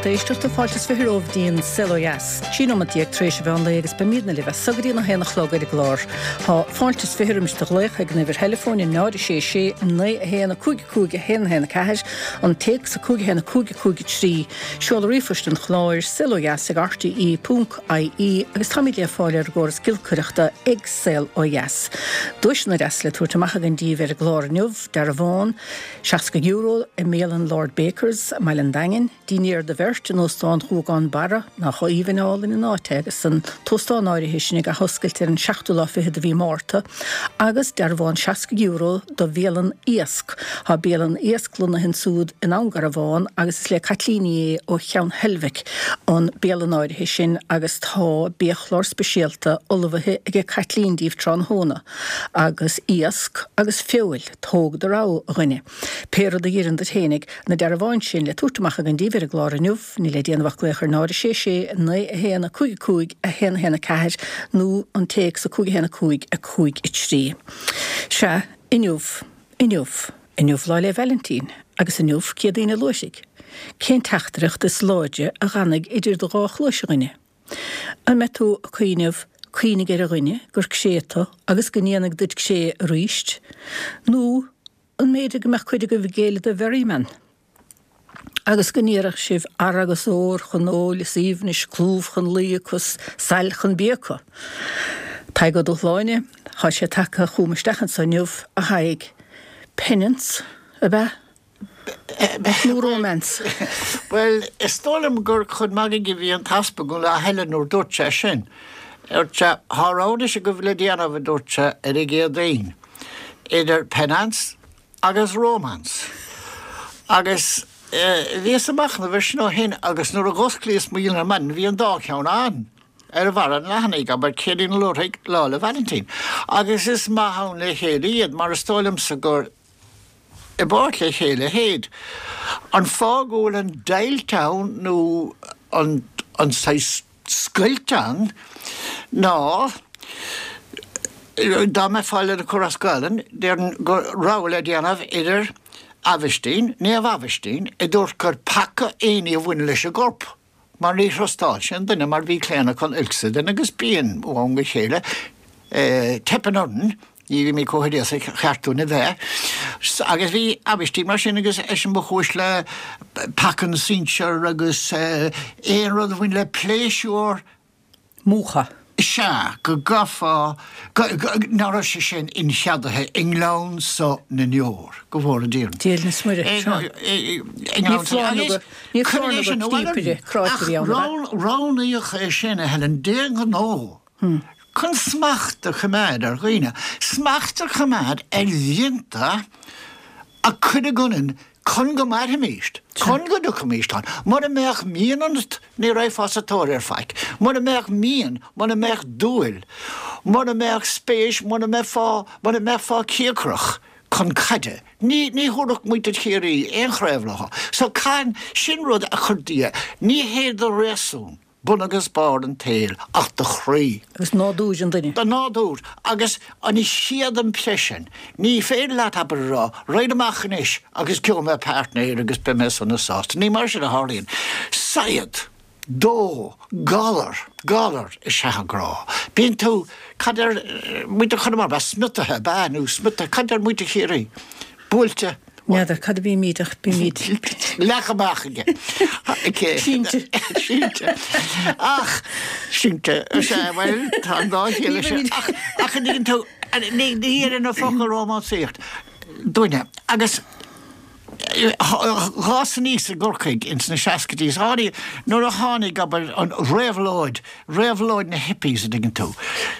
lucht éisteachta, fáilte is 20 romhaibh dtí'n Saol Ó Dheas. 13 nóimeat tar éis an mheán lae agus beimídne libh as so go dtí an 1 a chlog ar an gclár. Tá fáilte is 20 roimis do ghlaoch ag an uimhir theileafóin 0 6 6 9 1 5 5 1 1 4, an téacs 5 1 5 5 3, seoladh ríomhphoist an chláir, saolodheas ag rte ponc ie agus táimid le fáil ar an gcóras giolcaireachta ag Saol Ó Dheas. Duaiseanna deasa le tabhairt amach againn díbh ar an gclár inniu, dearbhán €60 i mbialann Lord Bakers i mBaile an Daingin, dinnéar do bheirt in Óstán Ghuagán Barra, nach aoibhinn álainn an áit é agus an t-óstán áirithe sin ag athoscailt ar an seachtú lá fichead de mhí Márta, agus dearbhán €60 do bhialann Iasc. Tá bialann Iasc lonnaithe ansúd in Abhainn Garbhán agus is le Caitlín Ní Aodha ó Cheann Heilbhic an bialann áirithe sin agus tá biachlár speisialta ullmhaithe aige Caitlín díbh tráthnóna agus iasc agus feoil, tóg do rogha, a dhuine. Pé rud a dh'oireann duit fhéinig, na dearbháin sin le tabhairt amach againn díbh ar an gclár inniu, níl le déanamh ach glaoch ar 0 6 6 9 1 5 5 1 1 4 nó an téacs 5 1 5 5 3. Sea, inniu, inniu, inniu Lá 'le Vailintín, agus inniu Céadaoin an Luaithrigh. Cén teachtaireacht is láidre a dh'fhanfaidh idir do dhá chluais, a dhuine? An mbeidh tú ag cuimhneamh, cuimhnigh ar a dhuine gur cré tu agus go ndéanfaidh duit cré aríst, nó an mb'fhéidir go mbeadh cuid agaibh ag géilleadh do Mherriman agus go n-iarrfadh sibh adhradh agus ór chun óil is aoibhnis, clúmh chun luí acu 's sail chun bia acu? Tadhg Ó Dúshláine, thá sé tagtha chugam isteach anso inniu, a Thaidhg. Penance, ab ea? Nó romance? Bhuel, is dóigh liom gur chun magaidh a bhí an t-easpag an lá eile nuair dúirt sé sin. Dúirt sé, Thá rogha anois agaibh le déanamh, a dúirt sé, ar an gCéadaoin, idir penance agus romance. Agus bhíos ag machnamh air sin ó shin agus nuair a dh'osclaíos mo dhialann ar maidin bhí an dá cheann ann, ar bharra an leathanaigh, abair, Céadaoin an Luaithrigh, Lá 'le Vailintín. Agus is maith ann le chéile iad mar is dóigh liomsa gur i bpáirt le chéile théid. An fáth go bhfuil an deighilt ann nó an an saghas scoilt ann ná dá mbeifeá lena cur as Gaelainn, déarfainn go rogha le déanamh idir Aibhistín, Naomh Aibhistín, a dúirt gur peaca aon ní a bhaineann leis an gcorp. mar ní thrustáil sé an duine mar bhí claonadh chun oilc sa duine agus bíonn ó am go chéile teipeann orainn, ní bhímid chomh hoideasach is ba cheart dúinn a bheith. Agus bhí Aibhistín mar sin agus eisean ba chúis le peaca na sinsear agus aon rud a bhain le pléisiúr, Múchadh. Sea, go gcaithfeá, ná raibh sé sin incheadaithe i ngleann so na ndeor, go bhfóire Dia orainn. Dia is Muire, sea. Ní foláir nó go, ní foláir nó gur cníopaire, cráite a bhí ann, ab ea? Ach roghnaíodh é sin, a Helen, d'aon ghnó, chun smacht a choimeád ar dhaoine, smacht a choimeád ar mhianta a cuireadh ionainn Chun go mairfimíst, chun go dtiocfaimíst ann. Mura mbeadh mian ionat, ní raghfá sa tóir ar faic. Mura mbeadh mian, mura mbeadh dúil, mura mbeadh spéis, mura mbeifeá, mura mbeifeá cíocrach chun caide, ní, ní thabharfadh muintir Chiarraí aon chraobh leo. So, can, sin rud a chuir Dia, ní hé do réasún, bun agus barr an tsaoil ach do chroí. Agus nádúr an duine. Do nádúr. Agus an chéad impression. Ní féidir leat, abair, a rá, raghainn amach anois agus gheobhaidh mé páirtnéir agus beidh mé sona sásta. Ní mar sin a tharlaíonn. Saighead, dó, galar, galar is ea an grá. Bíonn tú, cad deir muintir Chonamara, ab ea smiotaithe, ab ea, nó smiotaithe, cad deir muintir Chiarraí? Buailte. N'fheadar cad a bhímid ach bímid. Leagtha amach aige. Sínte. Sínte. Ach, sínte, sea, bhuel, tá an dá chiall leis sin. Ach, ach an dtuigeann tú, ní oireann an focal rómánsaíocht dúinne. Agus dh'fhás aníos i gCorcaigh ins na seascaidí, is tháinig, nuair a tháinig, abair, an réabhlóid, réabhlóid na hippies, an dtuigeann tú.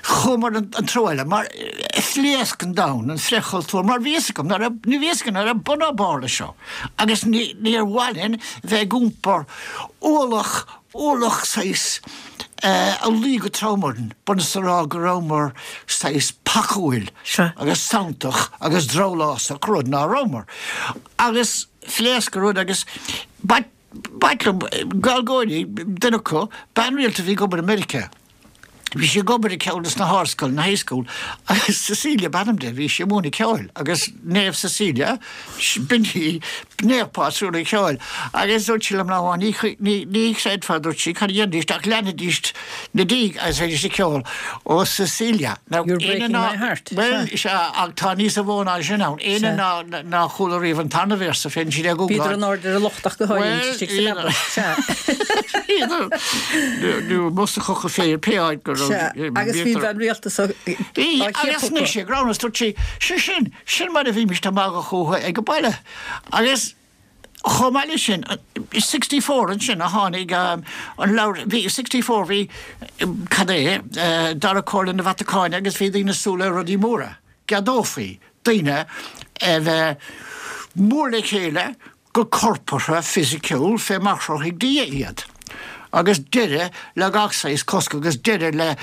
Chuamar an treo eile, mar phléasc an domhan, an frithchultúr, mar bhí fhios agam, ní raibh, ní bhí fhios agam, ná raibh bun ná barr leis seo. Agus ní, níor mhaith linn bheith ag iompar ualach, ualach saghas a luigh go trom orainn, b'ionann is a rá go rabhamar saghas pacúil agus santach agus drabhlásach, rud ná rabhamar. Agus phléasc an rud agus ba, B'ait liom, Gaeilgeoirí, duine acu, bean rialta a bhí ag obair i Meiriceá. Bhí sí ag obair i gceann des na hardscoileanna, high school, agus Cecilia ab ainm di, bhí sí ag múineadh ceoil agus Naomh Cecilia, b'in í naomh pátrún an cheoil. Agus dúirt sí liom lá amháin, ní, ní, ní chreidfeá, dúirt sí, cad a dhéanfaidís ach leanfaidís 'na diaidh agus bheidís ag ceol Oh Cecilia. Now, You're breaking my heart. Bhuel, sea, ach tá níos mó ná sin ann. Éinne ná, nár chuala riamh an tarna véarsa, féadann siad é a Bhíodar ghoogláil. in airde ar an locht ach go háirithe istigh sa leaba. Sea. Nó amuigh sa choca féir, pé áit go raibh. Sea, agus bhí an bhean rialta so á Bhí, agus ciapadh anois acu. ag roghnú, dúirt sí, sé sin, sin mar a bhímist ag magadh fúthu ag an baile. Agus chomh maith leis sin, i 64 ansin a tháinig an leabhar, bhí, 64 bhí, cad é, Dara Comhairle na Vatacáine agus bhí daoine ag súil le rudaí móra, gceadófaí daoine a bheith mór le chéile, go corpartha fisiciúil fé mar chruthaigh Dia iad, agus deireadh le gach saghas cosc agus deireadh le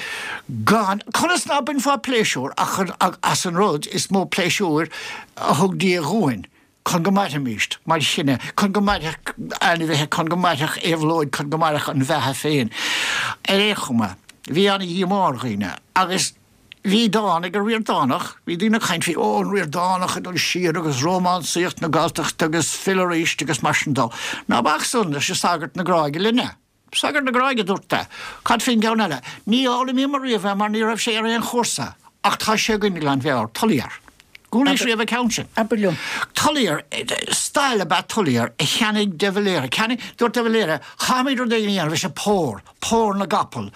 gan, conas ná bainfeá pléisiúr ach as an rud is mó pléisiúir a thug Dia dhúinn, chun go mairfimíst mar chine, chun go mairfeadh ainmhithe, chun go mairfeadh éabhlóid, chun go mairfeadh an bheatha féin. Ar aon chuma, bhí ana-dhíomá ar dhaoine, agus. Bhí dán ag an Ríordánach, bhí daoine ag caint faoi, ó, an Ríordánach ag dul siar agus rómánsaíocht na Galltachta agus fill arís agus mar sin dó. Ná bac san leis an Sagart na Gráige linne. Sagart na Gráige, dúirt mé. Cad faoin gceann eile? Ní fhoghlaimíomar riamh é mar ní raibh sé ar aon chúrsa ach tá sé againn i nGleann Bheáir, Tullier. Chualaís riamh an ceann sin? Abair liom. Tullier, stail ab ea Tullier a cheannaigh de Valera. Cheannaigh, dúirt de Valera, caithfimid rud éigin a dhéanamh leis an pór, pór na gcapall,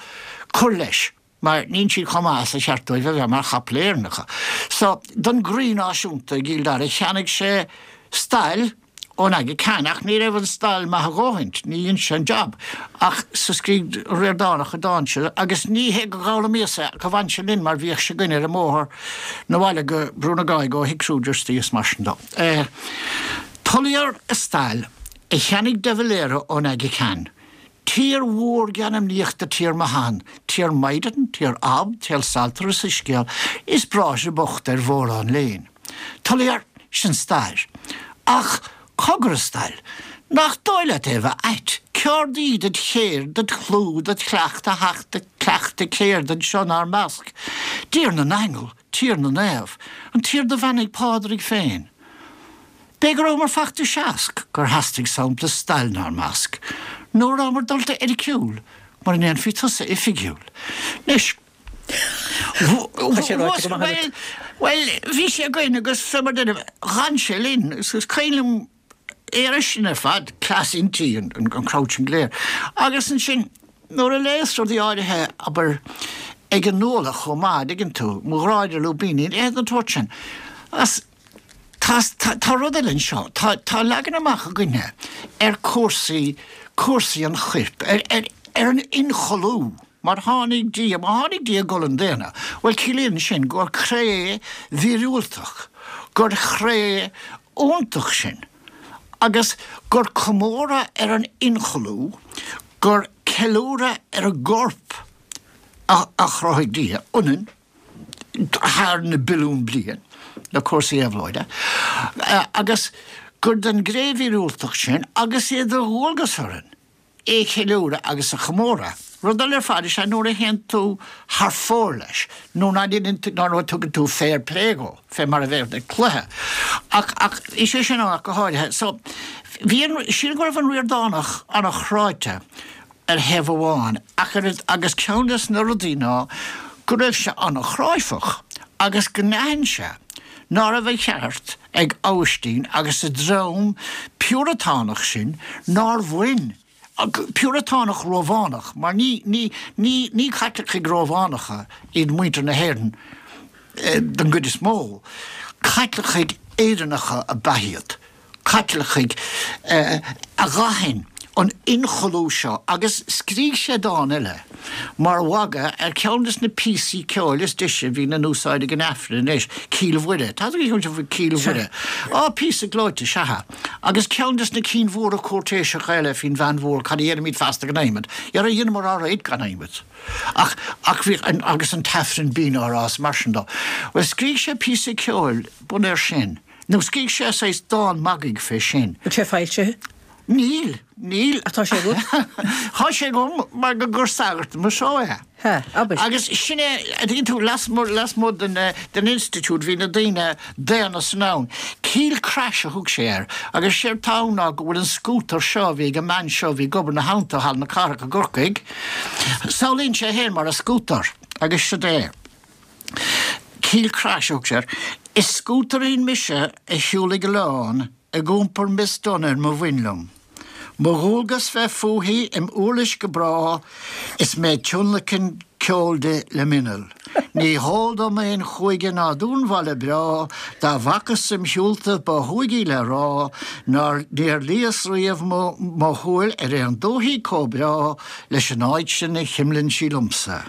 cur leis. mar níl siad chomh maith is a cheart dóibh a bheith mar chapaill Éireannacha. So, don gcroí náisiúnta i gCill Dara, cheannaigh sé stail ón Aga Khan, ach ní raibh an stail maith a dhóthaint, ní dhein sé an jab. Ach so scrígh Ríordánach an dán seo, agus ní hé gur dh'fhoghlaimíos é, ach bhain sé linn mar bhíodh sé againn ar an mbóthar 'na bhaile go Brú na Gráige ó Thigh Kruger istigh is mar sin dó. Tullier a stail a cheannaigh de Valera ón Aga Khan. Tír mhór geanmnaíochta tír mo shean, tír Maighdean, tír Ab, tír Saltair is Soiscéal, is bráithre bochta ar mhórán léinn. Tullier, sin stair. Ach cogar a stail, nach dóigh leat é a bheith ait, céard í dod chéird, dod chlú, dod chleacht a theacht ag cleachtadh céird anseo 'nár measc? Dtír na n-aingeal, tír na naomh, an tír do bheannaigh Pádraig féin. B'é go rabhamar fachta seasc gur theastaigh sampla stail 'nár measc, nó a rabhamar dulta oiriciúil mura ndéanfaí tusa oifigiúil. Anois, Tá sé ráite go maith agat. Bhuel, bhí sé againn agus fé mar deirim, dh'fhan sé linn. Is cuimhin liom é air sin ar fad, cleas innti an crowd sin go léir. Agus ansin, nuair a léas rudaí áirithe, abair, ag an Nuallach chomh maith, an dtuigeann tú, mo ghrá idir lúibíní, a leithéid den tsórt sin. As. Tá, tá rud eile anseo, tá, tá leagan amach againne ar cúrsaí, cúrsaí an choirp, ar, ar, ar an ionchollú, mar tháinig Dia, má tháinig Dia i gcolainn daonna, bhuel ciallaíonn sin gur cré mhíorúilteach, gur chré iontach sinn, agus gur comóradh ar an ionchollú, gur ceiliúradh ar an gcorp a, a chruthaigh Dia ionainn, thar na billiún bliain le cúrsaí éabhlóide, agus gur den gcré mhíorúilteach sinn agus é de dhualgas orainn é a cheiliúradh agus a chomóradh. Rud eile ar fad is ea nuair a théann tú thar fóir leis, nó ná déanann tú, nó nuair a tugann tú fair play dhó, fé mar a bheadh ag cluiche. Ach, ach, is é sin ann ach go háirithe. So, bhí an, sílim go raibh an Ríordánach an-chráite ar thaobh amháin, ach ar, agus ceann des na rudaí ná go raibh sé an-chráifeach agus go n-aithin sé ná raibh an cheart ag Abhaistín agus a dream Piúratánach sin nár bhain, Piúratánach Rómhánach, mar ní, ní, ní, ní Caitlicigh Rómhánacha iad muintir na hÉireann don gcuid is mó, Caitlicigh Éireannacha ab ea iad. Caitlicigh a dh'aithin an ionchollú seo agus scrígh sé dán eile mar mhagadh ar cheann des na píosaí ceoil is deise a bhíonn in úsáid ag an Aifreann anois, Cill Mhuire. Tá a fhios agat faoi Cill Mhuire. Á, píosa gleoite, sea. Agus ceann des na cinn mhóra cúirtéiseacha eile faoin bhean mhór, cad a dhéanfaimid feasta gan adhmad? Dhera, dheineamar ár réidh gan adhmad. Ach, ach bhí, agus an tAifreann binn á rá is mar sin dó. Bhuel, scrígh sé píosa ceoil bunaithe air sin. Nó scrígh sé saghas dán magaidh fé sin. Bhfuil sé foilsithe? Níl, níl. Ach tá sé agat? Tá sé agam mar gur sagart mo seó é. Hea, abair. Agus sin é, a dtuigeann tú, lasmuigh, lasmuigh den, den institiúid bhí na daoine daonna san ann. Keel Crash a thug sé air. Agus séard tá ann ná go bhfuil an scútar seo a bhí ag an mbean seo a bhí ag obair ina theannta i Halla na Cathrach i gCorcaigh, samhlaíonn sé féin mar a scútar agus siod é. Keel Crash a thug sé air. Is scútairín mise a shiúlfaidh oileán ag iompar Miss Dunne ar mo bhoinn liom. Mo dhualgas bheith fúithi im uirlis go bráth is mé ag tionlacan ceoil di le m'inneall. Ní heol dom aon chúige ná dúnbhaile breá dá bhfacas im shiúlta ba shúigí le rá nár níor luíos riamh mo shúil ar aon dúthaigh comh breá leis an áit sin a chuimleann sí liomsa.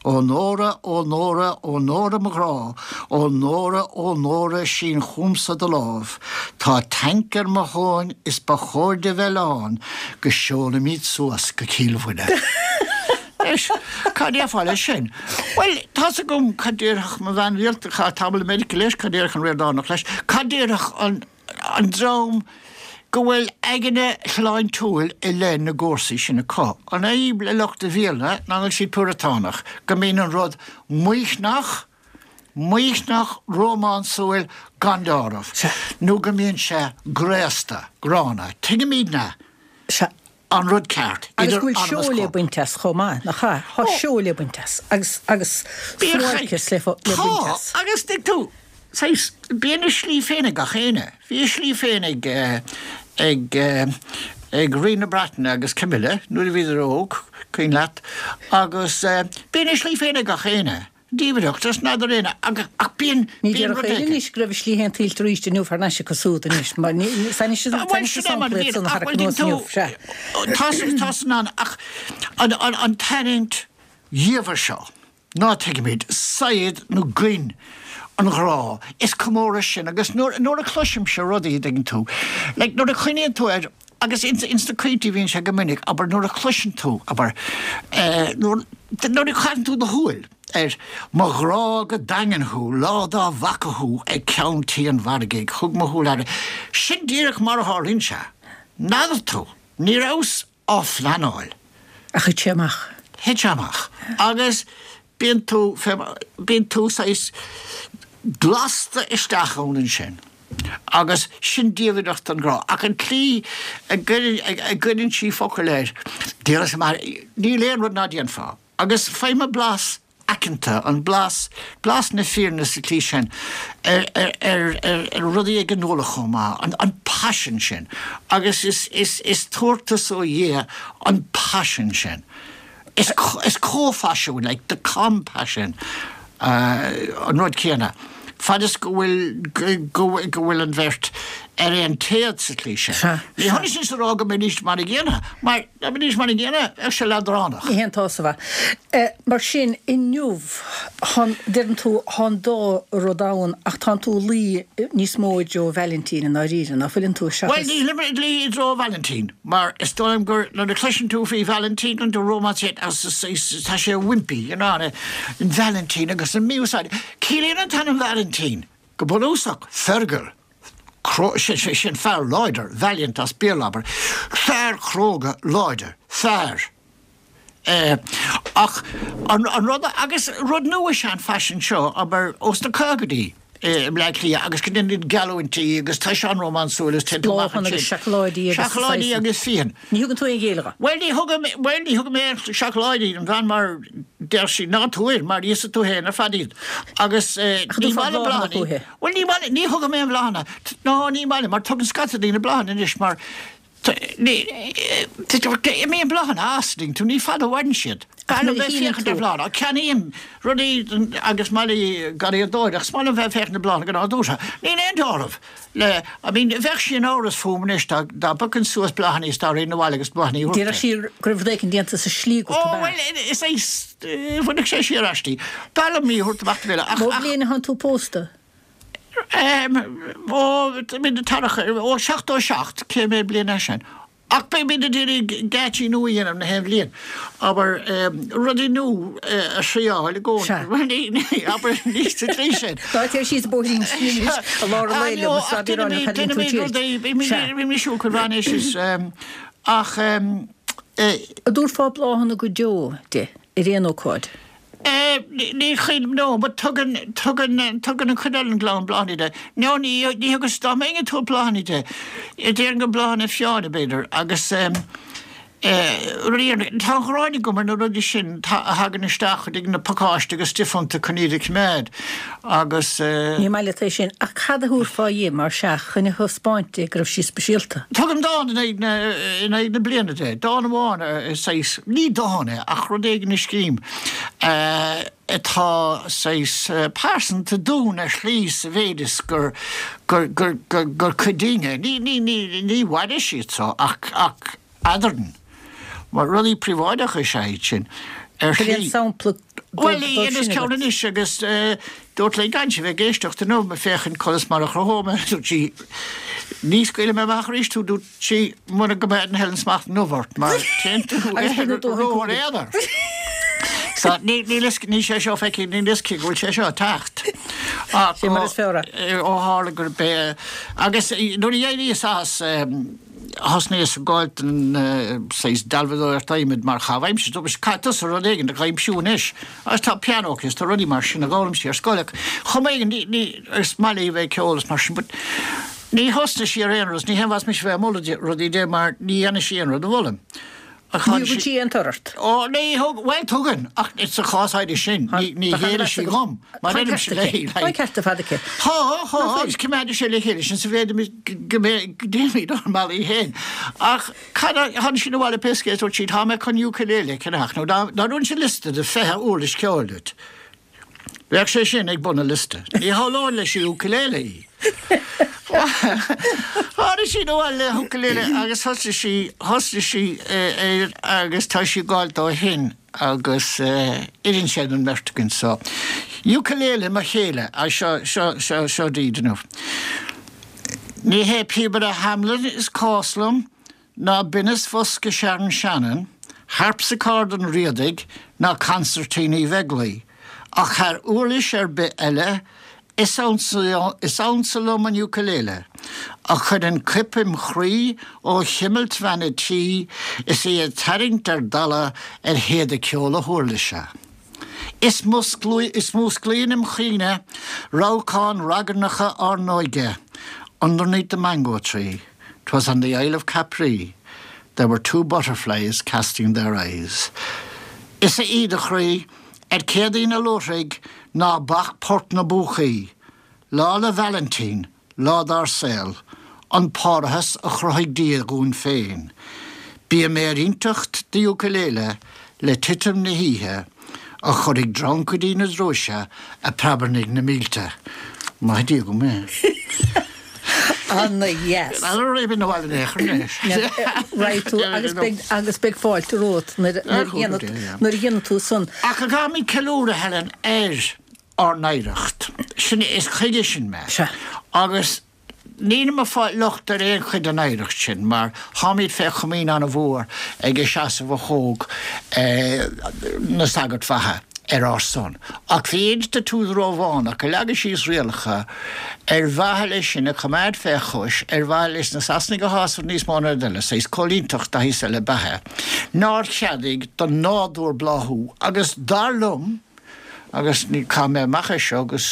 Ó Nóra, ó Nóra, ó Nóra mo ghrá, ó Nóra, ó Nóra, sín chugamsa do lámh. Tá tanc ar mo thóin is ba chóir di bheith lán go seolfaimid suas go Cill Mhuire. Anois, cad déarfá leis sin? Bhuel, tá's agam cad déarfadh mo bhean rialta, a chaith tamall i Meiriceá leis, cad déarfadh an Ríordánach leis, cad déarfadh an. an dream go bhfuil aigne shláintiúil i leith na gcúrsaí sin acu. An fhadhb le lucht an Bhéarla ná go bhfuil siad Púratánach, go mbíonn an rud maoithneach, maoithneach, rómánsúil gan deáramh, nó go mbíonn sé graosta, gránna. Tuigimidne an rud ceart, Agus go bhfuil seó le baint as chomh maith, nach ea? Tá seó le baint as, agus, agus suáilceas le, le baint as. Tá, agus tuig tú, saghas, bíonn a slí féin ag gach éinne. Bhí a slí féin ag, ag, ag Rí na Breataine agus Camilla nuair a bhíodar óg, cuimhin leat, agus bíonn a slí féin ag gach éinne. Diamhaireacht, is n'fheadar éinne, ach bíonn, Ní bíonn déarfadh rud éinne éigin. anois go raibh a slí féin tuillte arís inniu thar n-ais acu súd anois, mar ní, is anois is Bhuel, anois sin is é mar a sampla iad bhíonn, san a ach tharrac bhuel, anuas tú, inniu, sea. tá san, tá san ann, ach an, an, an tarraingt dhiamhair seo, ná tuigimid, saighead nó goin an ghrá, is comóradh sin, agus nuair, nuair a chloisimse rudaí, a dtuigeann tú, like, nuair a chuimhníonn tú ar, Agus ins na caointí bhíonn sé go minic, abair, nuair a chloiseann tú, abair, nuair, nuair a chaitheann tú do shúil ar mo ghrá go daingean thú, lá dá bhfaca thú ag ceann tí an mhargaidh, thug mo shúil aire. Sin díreach mar a tharlaíonn sé. N'fheadar tú, ní rabhas á phleanáil. Ach thit sé amach. Thit sé amach. Agus bíonn tú, bíonn tú saghas glasta isteach ann ansin. Agus sin diamhaireacht an ghrá. Ach an tslí a gcuireann sí focail air, diabhal is mar, níl aon rud ná déanfá. Agus faighim an blas aiceanta, an blas, blas na fírinne sa tslí sin, ar, ar, ar, ar rudaí ag an Nuallach chomh maith, an, an paisean sin. Agus is, is, is tabhartas ó Dhia an paisean sin. Is, is comhphaisean, like the compassion, an rud céanna. Fad is go bhfuil, go bhfuil an bheirt ar aon téad sa tslí sin. Ní hionann sin is a rá go mbeidís mar a gcéanna, mar dá mbeidís mar a gcéanna, bheadh sé leadránach. Ní haontófá. Mar sin, inniu, deireann tú, tá an dá rud ann ach tánn tú ag luí níos mó i dtreo Vailintín i ndáiríre, ná fuileann tú, seachas. Bhuel, nílim ag luí i dtreo Vailintín. Mar is dóigh liom gur nuair a chloiseann tú faoi Vailintín an romance agus tá sé wimpy, you know, an Vailintín agus an mí-úsáid. Ciallaíonn an t-ainm Vailintín, go bunúsach, Fergal, sin fear láidir, valiant as Béarla, abair, fear cróga láidir, fear. Ach an rud, agus rud nua is ea an faisean seo, abair, ós na caogaidí i mBleá Cliath agus go ndéanann geallúintí agus tá sé an-rómánsúil agus téann tú amach ansin. Bláthanna agus seacláidí agus Seacláidí agus fíon. Ní thugann tú aon ghéilleadh dó? Bhuel, ní thugaim, bhuel, ní thugaim aon seacláidí don bhean mar deir sí ná tabhair mar íosfaidh tú féin ar fad iad. Agus ní maith liom bláthanna. Bhuel, ní maith, ní thugaim aon bhláthanna. Ná ní maith liom mar tugann scata daoine bláthanna anois mar Imíonn bláthanna as, tuigeann tú, ní fada a mhaireann siad. B'fhearr liom bheith ag féachaint ar bhláthanna. Ceannaím rudaí agus maith liom garraíodóireacht, is maith liom bheith ag féachaint ar bhláthanna go nádúrtha. Níl aon dealramh le, I mean, bheadh sí in amhras fúm anois dá bpiocfainn suas bláthanna is dá raghainn abhaile agus bláthanna a thabhairt di. Déarfadh sí go raibh rud éicint déanta sa slí agat, ab ea? Ó, bhuel, is é, bhainfeadh sé siar aisti. B'fhearr liom í a thabhairt amach do bhéile ach, ach. Ó bhliain atánn tú pósta? Ó, ó 77, cé mhéad bliain é sin? Ach beimid ag iarraidh geáitsí nua a dhéanamh na haon bhliain. Abair, rudaí nua a thriáil i gcónaí. Abair, ní sa tslí sin. Ná téir síos bóithrín sin anois i lár an lae liom, is fada ar na cailín tú tirt. Bímid ag siúl chuig Ráinéis is ach. An dtabharfá bláthanna go deo di? ar aon ócáid? Ní chuimhin, no, but tugann, tugann, tugann an chuid eile den gclann bláthanna di. No, ní, ní thugas, dá mbeinn ag tabhairt bláthanna di, déarfainn gur bláthanna fiáine, b'fhéidir, agus rudaí, tá an ghráin agam ar na rudaí sin a thagann isteach chuig na pacáiste agus stuif iontu chun iad a choimeád agus. Ní maith leat é sin, ach cad a thabharfá dhi, mar sea, chun a thaispeáint di go raibh sí speisialta? Tugaim dán in aghaidh na, in aghaidh na bliana di, dán amháin, saghas, ní dán é ach rud éigin a scrím atá saghas pearsanta dúinn ar shlí sa mhéid is gur, gur, gur, gur, gur cuid dínn é. Ní, ní, ní, ní mhairfidh siad so ach, ach eadrainn. Mar rudaí príobháideacha is ea iad sin, ar Bhfuil aon shlí. sampla Bhuel, dóibh dhéanas sin ceann agat? anois agus dúirt léi gan sí bheith ag éisteacht inniu, féachaint conas mar a chruthóidh mé, dúirt sí, ní scaoilfidh mé amach arís tú, dúirt sí, mura gcoimeádann Helen smacht inniu ort, mar téann tú Agus beidh na dóthain ró cúraimí. ar éadar. So, ní, níl fhios, níl sé seo feicthe, níl fhios aici go bhfuil sé seo ag teacht. Ach Sé mar is fearr é. ó tharla gurb é, agus nuair a d'éiríos as, thosnaíos ag gabháil don saghas dealbhadóireacht adhmaid mar chaitheamh aimsire. Dúirt mise, caithfidh tusa rud éigin a aimsiú anois. Agus tá pianó aici is tá rudaí mar sin a d'fhoghlaim sí ar scoil ach chomh maith ní, ní, is maith léi bheith ag ceol is mar sin but ní thosnaigh sí ar aon rud is ní haon mhaith mise bheith ag moladh di rudaí di mar ní dhéanfaidh sí aon rud a mholaim. Ní thugann sí aon tor ort. Ó, ní thug, bhuel tugann, ach sa chás áirithe sin, ní, ní ghéillfidh sí dhom, mar deirimse léi, Tá an ceart ar fad aici. Tá, tá, agus coimeádfaidh sé le chéile sinn sa mhéid go mbeidh, go dtéimid ár mbealaí féin. Ach cad a, tháinig sí abhaile pé scéal, dúirt sí, tá mé chun ukulele a cheannach, nó dá, dá dtabharfainnse liosta de 20 uirlis ceoil duit, Bheadh sé sin ag bun an liosta. Ní shamhlóinn leis an ukulele í. Tháinig sí abhaile le ukulele agus thosaigh sí, thosaigh sí air agus tá sí ag gabháil dó ó shin agus oireann sé don mbeirt againn so. Ukulele mo chéile, seo, seo, seo, seo daoibh inniu. Ní hé píobaire Hamelin is cás liom, ná binneas bhosca Sharon Shannon, harpsichord an Riadaigh ná consairtín Uí Bheaglaoi, ach thar uirlis ar bith eile, is ansa liom an ukulele, a chuireann coip im chroí ó chuimilt bhean a' tí is í ag tarraingt ar dalladh ar théada ceoil a huirlise. Is músclaíonn im chuimhne rabhcáin ragairneacha ár n-óige, underneath the mango tree. 'Twas on the Isle of Capri There were two butterflies casting their eyes Is a Íde chroí, ar Céadaoin a Luaithrigh Ná bac Port na bPúcaí Lá 'le Vailintín, lá dár saol An parthas a chruthaigh Dia dhúinn féin Bím ar inteacht d'ukulele le titim na hoíche A chuirfidh dreancaidí na drúise a preabarnaigh na mílte. Maith Dia dhom é. Ana dheas. Raghaidh tú agus beidh agus beidh fáilte romhat nuair a nuair a dhéanfaidh tú san. Ach go gcaithfimid ceiliúradh, Helen, ar ár n-oidhreacht. Sin, is chuige sin mé. Sea. Agus Nílim ag fáil locht ar aon chuid den oidhreacht sin mar táimid fé chomaoin an-mhór ag an seasamh a thóg na sagairt mhaithe ar ár son. Ach bhí institiúid Rómhánach ag leagadh síos rialacha ar mhaithe leis sinn a choimeád fé chois, ar mhaithe leis na Sasanaigh a shásamh níos mó ná rud eile, saghas coilínteacht de shaghas eile ab ea é, nár cheadaigh don nádúr bláthú agus dar liom, Agus ní, caithfidh mé amach é seo agus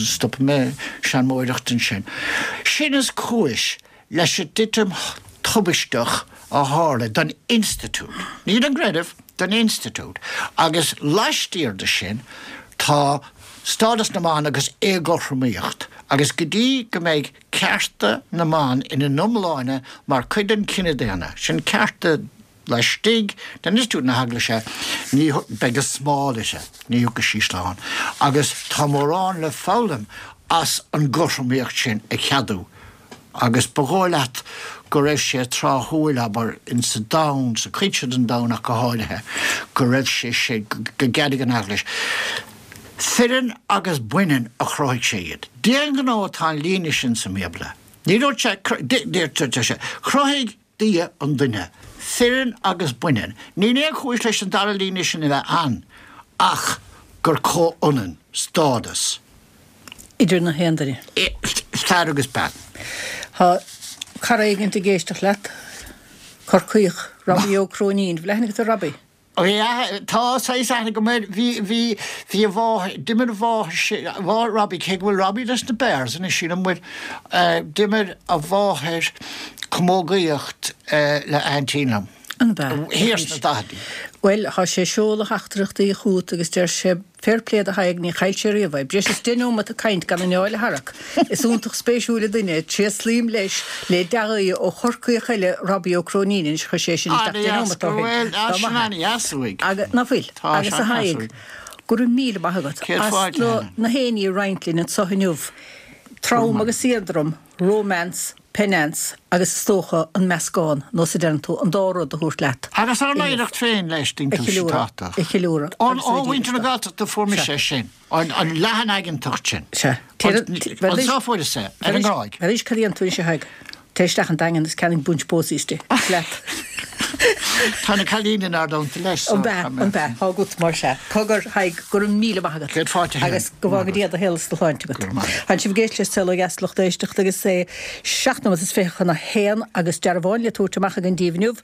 stopfaidh mé seanmóireacht ansin. Sin is cúis leis an dtitim tubaisteach a tharla don institiúid, ní don gcreideamh, don institiúid. Agus laistiar de sin tá stádas na mban agus éagothromaíocht. Agus go dtí go mbeidh cearta na mban ina n-iomláine mar chuid den chine daonna, sin cearta Laistigh d'institiúid na hEaglaise, ní beidh a smál uirthi, ní thiocfaidh sí slán. Agus tá mórán le foghlaim as an gcothromaíocht sin a cheadú. Agus ba dhóigh leat go raibh sé tráthúil, abair, insa domhan, sa chuid seo den domhan ach go háirithe, go raibh sé sé, go gceadaigh an Eaglais. Fireann agus baineann a chruthaigh sé iad. D'aon ghnó atá an líne sin sa mBíobla. Ní dúirt sé, dúirt sé, chruthaigh Dia an duine, fireann agus baineann. Níl aon chúis leis an dara líne sin a bheith ann ach gur comhionann stádas. idir na haon duine. fear agus bean. Tá cara éigint ag éisteacht leat, Corcaíoch, Robbie Ó Cróinín. Bhfuil aithne agat ar Robbie? Bhí, tá saghas aithne agam air, bhí, bhí, bhí a mháthair, d'imir a mháthair, a mháthair Robbie, cé go bhfuil Robbie leis na Bears anois sílim, bhuel, d'imir a mháthair camógaíocht le aintín liom. An b'ea? Thiar sna daicheadaí. Bhuel, tá sé ag seoladh theachtaireachtaí chugat agus deir sé, Fair play do Thadhg, ní chaill sé riamh é. Breis is 10 neomat ag caint gan anáil a tharrac. Is iontach spéisiúil an duine é. Tréaslaím leis le dea-ghuí ó Chorcaíoch eile, Robbie Ó Cróinín. Anois chuir sé sin isteach 10 neomat ó shin. Dá maith é. Agus, ná fuil? Agus a Thaidhg, go raibh míle maith agat as na héinní a roinnt linn anseo inniu. Trom agus éadrom, romance, penance agus is dócha an meascán, nó sa deireann tú, an dá rud a thabhairt leat. Agus ár n-oidhreacht féin leis, a cheiliúradh, a cheiliúradh Ó mhuintir na Gaeltachta fuair mise é sin, an leathanaigeantacht sin. Sea. Anseo fuaireas é, ar an nGráig. Arís cad a dhéanann tú anois a Thaidhg? Téigh isteach an Daingean agus ceannaigh bunch posies di. Leat. Tá na cailíní inár dteannta leis so. An b'ea, an b'ea, tá agat mar sea. Cogar, Thaidhg, go raibh míle maith agat. Céad fáilte a Helen. Agus go bhfága Dia do shaol is do shláinte agat. Go raibh maith agat. Tánn sibh ag éisteacht le Saol Ó Dheas a lucht éisteachta agus é 7 nóiméad is 20 chun a haon agus dearbhán le tabhairt amach againn daoibh inniu.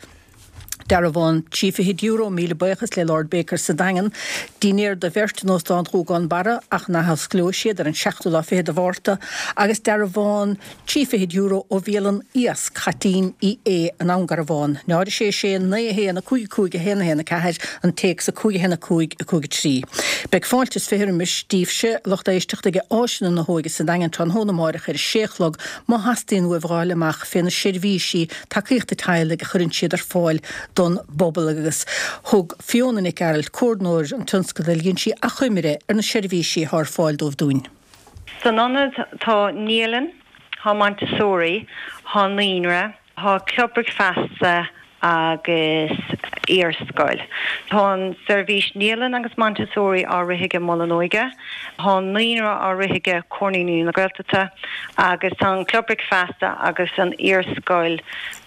Dearbhán trí fichid euro, míle buíochas le Lord Baker sa Daingean. Dinnéar do bheirt in Óstán Ghúgán Barra ach an athosclóidh siad ar an seachtú lá fichead de Mhárta agus dearbhán trí fichid euro ó bhialann Iasc Chaitlín Uí Aodha in Abhainn Garbhán. 0 6 6 9 1 5 5 1 1 4 an téacs 5 1 5 5 3. Beidh fáilte is 20 roimis daoibhse, lucht éisteachta, ag Áiseanna na hÓige sa Daingean tráthnóna amáireach ar a sé a chlog má theastaíonn uaibh a fháil amach fé na seirbhísí tacaíochta teaghlaigh a chuireann siad ar fáil don bpobal agus thug Fiona Nic Gearailt, Comhordnóir an tionscadail, dhein sí achoimre ar na seirbhísí atá ar fáil dóibh dúinn. San ionad tá naíolann, tá Montessori, tá naíonra, tá club bricfeasta agus iarscoil. Tá an seirbhís naíolann agus Montessori á rith aige Mol an Óige, tá an naíonra á rith aige Comhar Naíonraí na Gaeltachta agus tá an club bricfeasta agus an iarscoil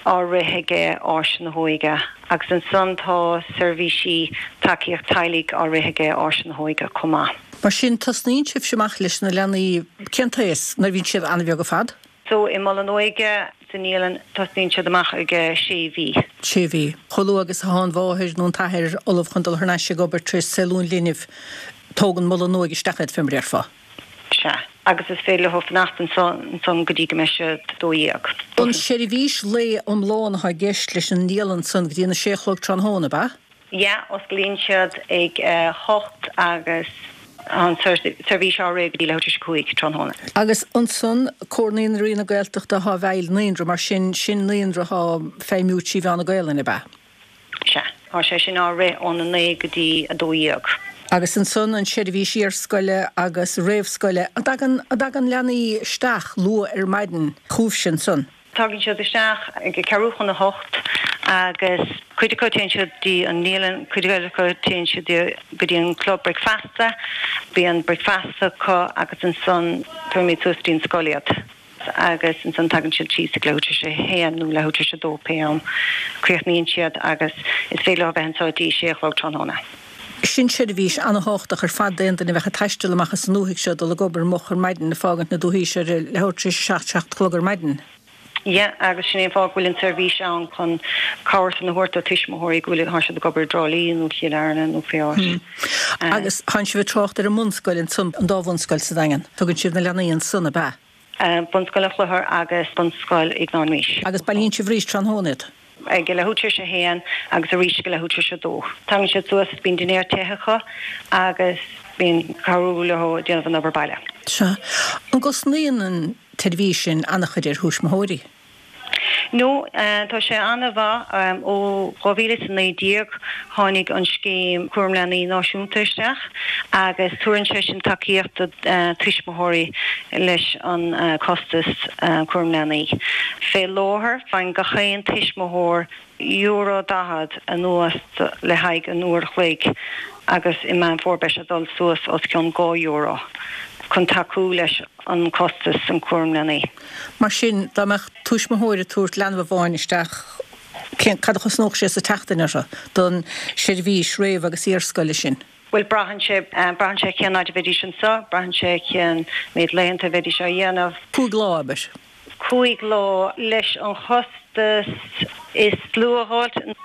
á rith aige Áis na hÓige agus ansan tá seirbhísí tacaíocht teaghlaigh á rith aige Áis na hÓige chomh maith. Mar sin, tosnaíonn sibhse amach leis na leanaí, cén t-aos, nuair a bhíonn siad an-bheag ar fad? So, i Mol an Óige, sa naíolann, tosnaíonn siad amach ag sé mhí. Sé mhí. Chomh luath agus atá an mháthair nó an t-athair ullamh chun dul thar n-ais ag obair tar éis saolú an linbh, tógann Mol an Óige isteach iad, fé mar a déarfá. Sea. Agus is féidir leo fanacht anso, ansan go dtí go mbeidh siad 12. An seirbhís lae iomlán atá i gceist leis an naíolann san go dtí an a sé a chlog tráthnóna, ab ea? Yeah, osclaíonn siad ag a hocht agus tá an seirbhís á rith go dtí leathuair tar éis a cúig tráthnóna. Agus ansan, Comhar Naíonraí na Gaeltachta atá i bhfeighil naíonra, mar sin, sin naíonra atá ag feidhmiú trí mheán na Gaelainne, ab ea? Sea, tá sé sin á rith óna naoi go dtí a dó dhéag. Agus ansan an seirbhís iarscoile agus réamhscoile, an dtagann, an dtagann leanaí isteach luath ar maidin chugaibhse ansan? Tagann siad isteach ag ceathrú chun a hocht agus cuid acu téann siad dtí an naíolann, cuid eile acu téann siad go dtí an club bricfeasta, bíonn bricfeasta acu agus ansan tabharfaimid suas dtí an scoil iad agus ansan tagann siad síos ag leathuair tar éis a haon nó leathuair tar éis a dó pé am críochnaíonn siad agus is féidir leo a bheith anseo dtí sé a chlog tráthnóna. Sin seirbhís ana-thábhachtach ar fad d'aon duine a bheadh ag taisteal amach as an ndúthaigh seo, dul ag obair moch ar maidin, ag fágaint na dúthaí seo ar a leathuair tar éis a seacht, seacht a chlog ar maidin. Yeah, agus sin é an fáth go bhfuil an tseirbhís ann chun cabhair san a thabhairt do tuismitheoirí go bhfuil, tá siad ag obair i dTrá Lí nó Chill Airne nó pé áit. Agus tánn sibh ag trácht ar an mbunscoil ansan, an dá bhunscoil sa Daingean. Tugann sibh na leanaí ansan, ab ea? Bunscoil an Chlochair agus Bunscoil Iognáin Rís. Agus bailíonn sibh arís tráthnóna iad? Ag leathuair tar éis a haon agus arís ag leathuair tar éis a dó. Tagann siad suas, bíonn dinnéar te acu agus bíonn cabhrú leo ag déanamh an obair baile. Sea. An gcosnaíonn an tseirbhís sin an-chuid ar thuismitheoirí? No, tá sé an-mhaith. Ó 2019 tháinig an scéim Cúram Leanaí Náisiúnta isteach agus tabharann sé sin tacaíocht do tuismitheoirí leis an costas cúram leanaí. Fé láthair faigheann gach aon tuismitheoir euro 40 anuas le haghaidh an uair a chloig agus i Meán Fómhair beidh sé ag dul suas os cionn 2 euro chun tacú leis an costas an cúram leanaí. Mar sin, dá mbeadh tuismitheoir ag tabhairt leanbh amháin isteach, cén, cad a chosnódh sé sa tseachtain orthu don seirbhís réamh agus iarscoile sin? Bhuel, braitheann sé, braitheann sé cén fhaid a bheidís anseo, braitheann sé cén méid laethanta a bheidís á dhéanamh. 5 lá, abair. 5 lá, leis an chostas is lú a dh'fháilt,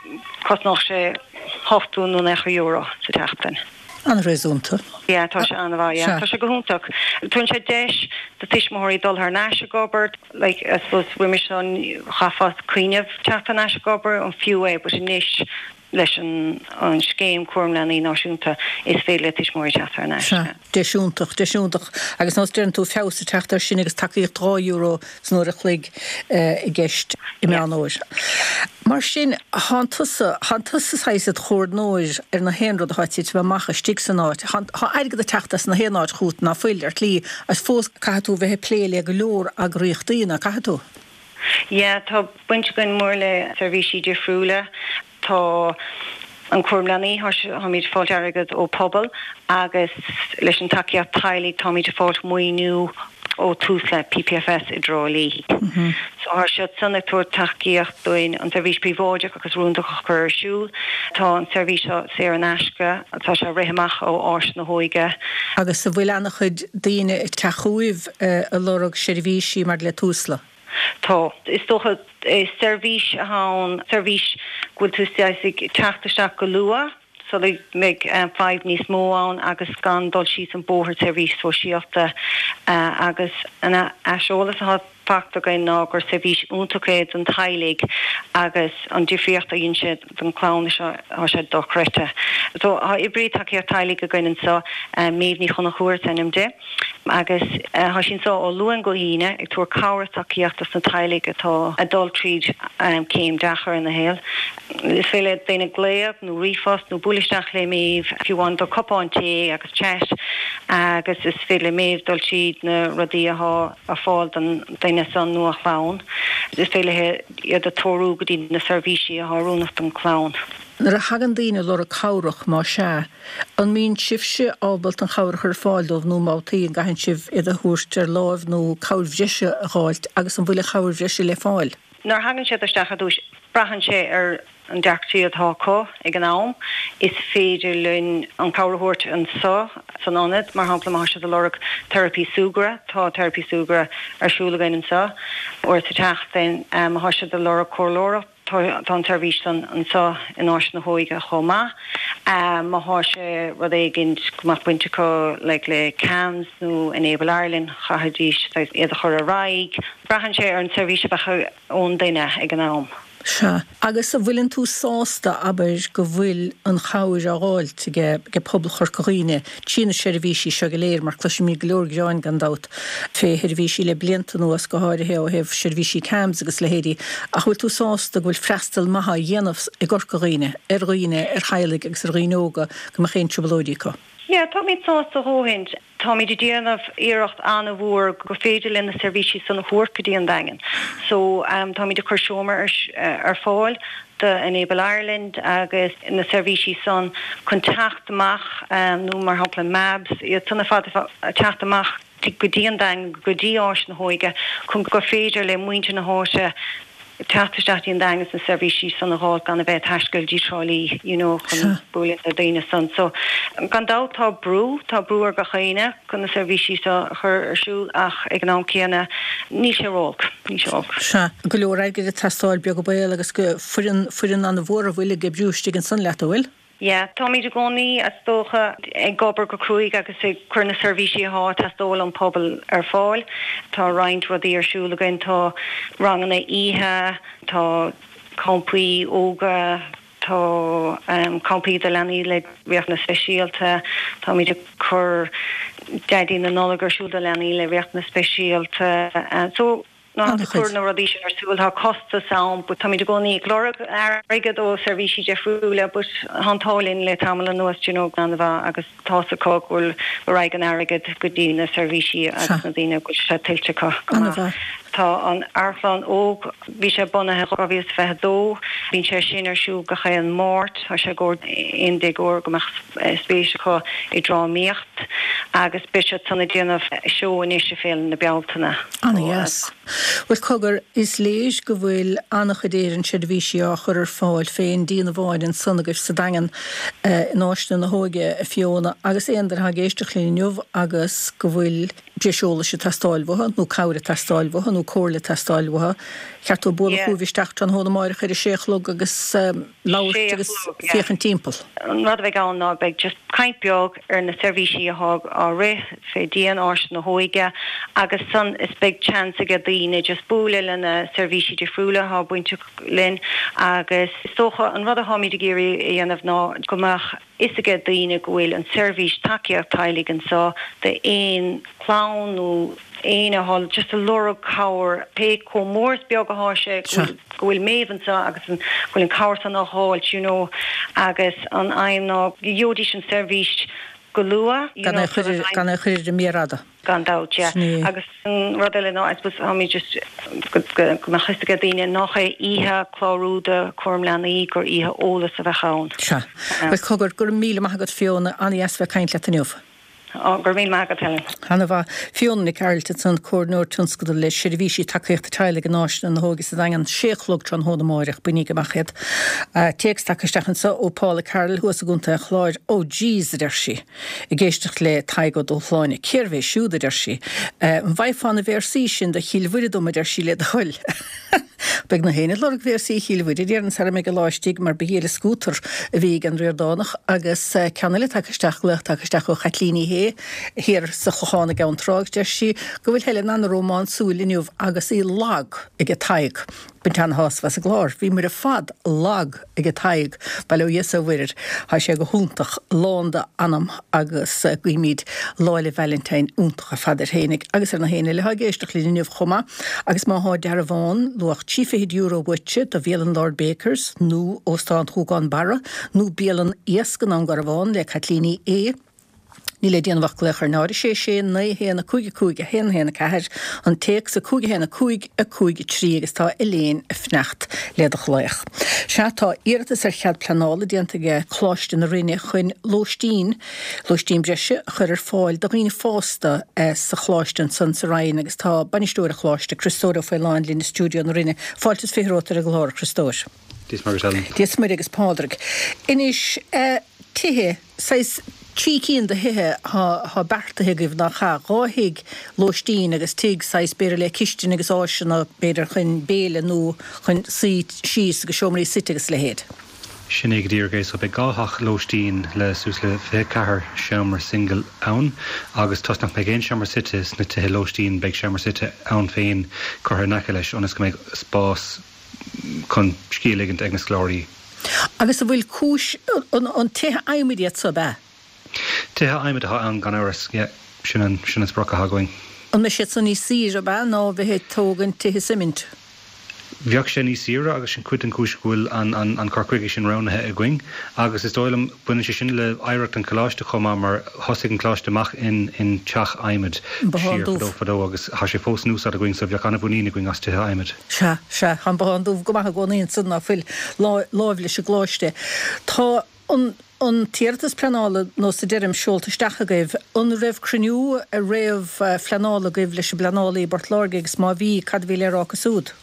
cosnódh sé. 80 nó 90 euro sa tseachtain. An-réasúnta. Yeah, tá sé an-mhaith, yeah. Tá sé go hiontach. Tugann sé deis do tuismitheoirí dul thar n-ais ag obair, like, I suppose roimis seo chaithfeá cuimhneamh teacht thar n-ais ag obair, an fiú é, but anois leis an an scéim Cúram Leanaí Náisiúnta is féidir le tuismitheoirí teacht thar n-ais. Sea, deis iontach, deis iontach. Agus nós deireann tú feabhas ag teacht air sin agus tacaíocht €2 san uair a chloig i gceist i Meán Fhómhair. Mar sin, thánn tusa, thánn tusa saghas id chomhordnóir ar na haon rud atá ag titim amach istigh san áit. Thá, thá airgead ag teacht as na haon áit chugat, ná fuil, ar shlí, agus fós caithfidh tú bheith ag plé le go leor eagraíochtaí, ná caithfidh tú? Yeah, tá baint againn mór le seirbhísí difriúla. Tá an cúram leanaí, táimid ag fáilt airgead ó pobal agus leis an tacaíocht teaghlaigh táimid ag fáilt maoiniú ó Tusla, PPFS i dTrá Lí. So tá siad san ag tabhairt tacaíocht dúinn an seirbhís príobháideach agus rúndach a chur ar siúl. Tá an seirbhís seo saor in aisce, tá sé ag rith amach ó Áis na hÓige. Agus an bhfuil ana-chuid daoine ag teacht chugaibh ag lorg seirbhísí maidir le Tusla? Tá. Is dócha, is seirbhís atá ann, seirbhís go bhfuil tú saghas ag teacht isteach go luath sula mbeidh fadhb níos mó ann agus gan dul síos an bóthar seirbhís sóisialta agus an aiseolas atá fachta againn ná gur seirbhís iontach é don teaghlaigh agus an difríocht a dhein sé don chlann seo, tá sé dochreidte. So tá oibrí tacaíocht teaghlaigh againn anseo, Méabh Ní Chonchúir is ainm di. Agus tá sí anseo ó Luan go hAoine ag tabhairt cabhair is tacaíocht dos na teaghlaigh atá ag dul tríd céim deacair ina shaol. Is féidir le daoine glaoch nó ríomhphost nó bualadh isteach le Méabh, fiú amháin do cupán tae agus chat agus is féidir le Méabh dul tríd na rudaí atá ar fáil don duine san nó a chlann. Is féidir léi iad a treorú go dtí na seirbhísí atá oiriúnach don chlann. Nuair a thagann daoine ag lorg cabhrach, más ea, An mbíonn sibhse ábalta an chabhair a chur ar fáil dóibh nó babhtaí an gcaitheann sibh iad a thabhairt ar láimh nó cabhair bhreise a dh'fháilt agus an bhfuil an chabhair bhreise le fáil? Nuair a thagann siad isteach ar dtús, braitheann sé ar an deacrachtaí atá acu ag an am. Is féidir linn an chabhair a thabhairt anseo san ionad, mar shampla má tá siad ag lorg teiripí súgartha, tá teiripí súgartha ar siúl againn anseo uair sa tseachtain. Má tá siad ag lorg comhairleoireacht, Tá an tseirbhís san anseo in Áis na hÓige chomh maith. Má thá sé rud éigint go mbeadh baint acu like le CAMHS nó Enable Ireland chaithfidís saghas iad a chur ar aghaidh. Braitheann sé ar an tseirbhís a bheadh ón duine ag an am. Sea. Agus an bhfuileann tú sásta, abair, go bhfuil an chabhair á dh'fháilt ag pobal Chorca Dhuibhne trí na seirbhísí seo go léir, mar cloisimid go leor gearáin gan dabht fé sheirbhísí le blianta anuas, go háirithe ó thaobh seirbhísí CAMHS agus leithéidí, ach bhfuil tú sásta go bhfuil freastal maith á dhéanamh i gCorca Dhuibhne ar dhaoine, ar theaghlaigh agus ar dhaoine óga go mbeadh aon trioblóidí acu? Yeah, táimid sásta a dhóthain. Táimid ag déanamh iarracht an-mhór go féidir linn na seirbhísí san a thabhairt go dtí an Daingean. So, táimid ag cur seomra ar fáil do Enable Ireland agus na seirbhísí san chun teacht amach nó mar shampla MABS, iad san ar fad ag teacht amach go dtí an Daingean, go dtí Áis na hÓige chun gur féidir le muintir na háite teacht isteach dtí an Daingean is na seirbhísí san a dh'fháil gan a bheith ag taisteal dtí Trá Lí you know chun bualadh le daoine san. So gan dabht tá brú, tá brú ar gach éinne chun na seirbhísí seo a chur ar siúl ach ag an am céanna níl sé ró-olc, níl sé olc. Sea, go leor airgid ag teastáil beag an baol agus go foireann, foireann an-mhór a bhfuil ag oibriú istigh ansan leat, an bhfuil? Yeah, táimid i gcónaí, is dócha, ag obair go cruaidh agus ag cur na seirbhísí atá ag teastáil ón pobal ar fáil. Tá roinnt rudaí ar siúl againn, tá ranganna oíche, tá campaí ióga, tá campaí do leanaí le riachtanais speisialta, táimid ag cur Daidí na Nollag ar siúl do leanaí le riachtanais speisialta. So, Nuair atá tú ag cur na rudaí sin ar siúl, tá costas ann but táimid i gcónaí ag lorg airgead ó seirbhísí difriúla but tá an t-ádh linn le tamall anuas do you know an-mhaith agus tá's acu go bhfuil go raghaidh an airgead go dtí na seirbhísí agus na daoine go bhfuil sé tuillte acu go maith. Tá an Amharclann Óg, bhí sé bunaithe 2022, bíonn sé sin ar siúl gach aon Máirt, tá sé i gcomhair aon déagóir go mbeadh spéis acu i drámaíocht agus beidh siad san ag déanamh seó anois i Féile na Bealtaine. Ana-dheas. Bhuel, cogar, is léir go bhfuil an-chuid Éireann seirbhísí á chur ar fáil fén díon amháin ansan agaibh sa Daingean in Áiseanna na hÓige, a Fiona, agus aon duine atá ag éisteacht linn inniu agus go bhfuil breis eolais ag teastáil uathu, nó cabhair ag teastáil uathu, nó comhairle ag teastáil uathu, cheart dóibh bualadh chugaibh isteach tráthnóna amáireach ar a sé a chlog agus labhairt agus féachaint timpeall. An rud a bheidh ann ná beidh just caint beag ar na seirbhísí athá á rith fé dhíon Áis na hÓige agus san is beidh chance aige daoine just bualadh le na seirbhísí difriúla athá bainteach linn agus is dócha an rud atháimid ag iarraidh a dhéanamh ná go mbeadh fhios aige daoine go bhfuil an seirbhís tacaíocht teaghlaigh anso d'aon chlann nó éinne athá just ag lorg cabhair, pé chomh mór is beag athá sé, go bhfuil, go bhfuil Méabh anso agus an, go bhfuil an cabhair san á dh'fháilt you know agus an aidhm ná go gheobhaidís an seirbhís go luath you Gan know é sort of gan é chur ar an méar fhada. Gan dabht, yeah. Sin é. Agus an rud eile ná, I suppose, táimid just, go mbeadh fhios aige daoine nach é oíche clárú do chúram leanaí, gur oíche eolas a bheadh ann. Sea. Bhuel, cogar, go raibh míle maith agat, Fiona. An-dheas bheith ag caint leat inniu. Ó, go raibh míle maith agat, Helen. Ana-mhaith. Fiona Nic Gearailt ansan, Comhairleoir Tionscadal le Seirbhísí Tacaíochta Teaghlaigh in Áiseanna na hÓige sa Daingean, sé a chlog tráthnóna amáireach, bainigí amach iad. Téacs tagtha isteach anso ó Paula Carroll thuas i gContae an Chláir. Oh jeez, a deir sí. Ag éisteacht le Tadhg Ó Dúshláine. Cérbh é siúd, a deir sí. An bhfaighfeá na véarsaí sin do Chill Mhuire dom, a deir sí, le do thoil. Beidh na héinne ag lorg véarsaí Chill Mhuire, déarfainn, sara mbeidh an lá istigh, mar ba ghile scútar a bhí ag an Ríordánach. Agus ceann eile tagtha isteach, glaoch tagtha isteach ó Chaitlín Uí Shé, thiar sa Chlochán i gCeann Trá, agus deir sí go bhfuil Helen an-rómánsúil inniu agus í lag ag Tadhg. Baint ana-shásamh as an gclár. Bhíomar ar fad lag ag Tadhg, bail ó Dhia is ó Mhuire air. Tá sé go hiontach, lán d'anam agus guímid Lá 'le Vailintín iontach ar fad air fhéinig agus ar na héinne eile atá ag éisteacht linn inniu chomh maith. Agus má thá dearbhán luach €30 uaitse do bhialann Lord Bakers nó Óstán Ghúgán Barra nó bialann Iasc i nDún Garbhán le Caitlín Uí Aodha, Níl le déanamh ach glaoch ar 0 6 6 9 1 5 5 1 1 4, an téacs 5 1 5 5 3 agus tá Elaine ag fanacht le do ghlaoch. Sea, tá iarratas ar chead pleanála déanta ag Coláiste na Rinne chun lóistín, lóistín breise, a chur ar fáil do dhaoine fásta sa choláiste ansan sa Rinn agus tá bainisteoir an choláiste, Criostóir Ó Faoláin linn i stiúideo na Rinne. Fáilte is 20 romhat ar an gclár, a Chriostóir. Dia is Muire duit, Helen. Dia is Muire agus Pádraig. Anois, tithe, saghas trí cinn de thithe atá beartaithe agaibh, nach ea? Dhá thigh lóistín agus tigh saghas b'fhéidir le cistin agus áiseanna b'fhéidir chun béile nó chun suí síos agus seomraí suite agus a leithéid. Sin é go díreach é. So beidh dhá theach lóistín le suas le 24 seomra singil ann agus toisc nach mbeidh aon seomra suite sna tithe lóistín beidh seomra suite ann féin curtha in aice leis ionas go mbeidh spás chun scíth a ligint ag na scoláirí. Agus an bhfuil cúis, an tithe adhmaid iad so, ab ea? Tithe adhmaid atá ann gan amhras, yeah. Sin an, sin an sprioc atá againn. An mbeidh siad san níos saoire, ab ea, ná bheith ag tógaint tithe suimint? Bheadh sé níos saoire agus sin cuid den chúis go bhfuil an, an, an cur chuige sin roghnaithe againn. Agus is dóigh liom, baineann sé sin le hoidhreacht an choláiste chomh maith mar thosaigh an coláiste amach in, in teach adhmaid An Bothán siar Dubh. fadó fadó agus tá sé fós in úsáid againn so bheadh an-mhuinín againn as tithe adhmaid. Sea, sea, tá an Bothán Dubh go maith i gcónaí ansan, ná fuil, láimh leis an gcoláiste. Tá an, an t-iarratas pleanála, nós a deirim, seolta isteach agaibh. An raibh cruinniú réamh-phleanála agaibh leis an bpleanálaí i bPort Láirge agus má bhí, cad a bhí le rá acu siúd?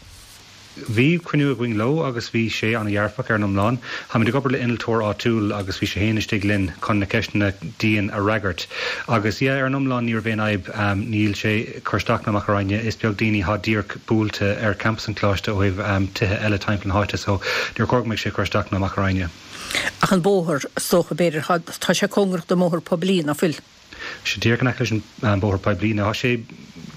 Bhí cruinniú againn leo agus bhí sé an-dhearfach ar an iomlán. Táimid ag obair le innealtóir áitiúil agus bhí sé féin istigh linn chun na ceisteanna dian a fhreagairt. Agus yeah, ar an iomlán ní raibh aon fhadhb. Níl sé ag cur isteach ná amach orainne. Is beag daoine atá díreach buailte ar campas an choláiste ó thaobh tithe eile timpeall na háite so níor chóir go mbeadh sé ag cur isteach ná amach orainne. Ach an bóthar, is dócha, b'fhéidir, tá sé cóngarach don mbóthar poiblí, ná fuil? sé díreach in aice leis an bóthar poiblí. Now tá sé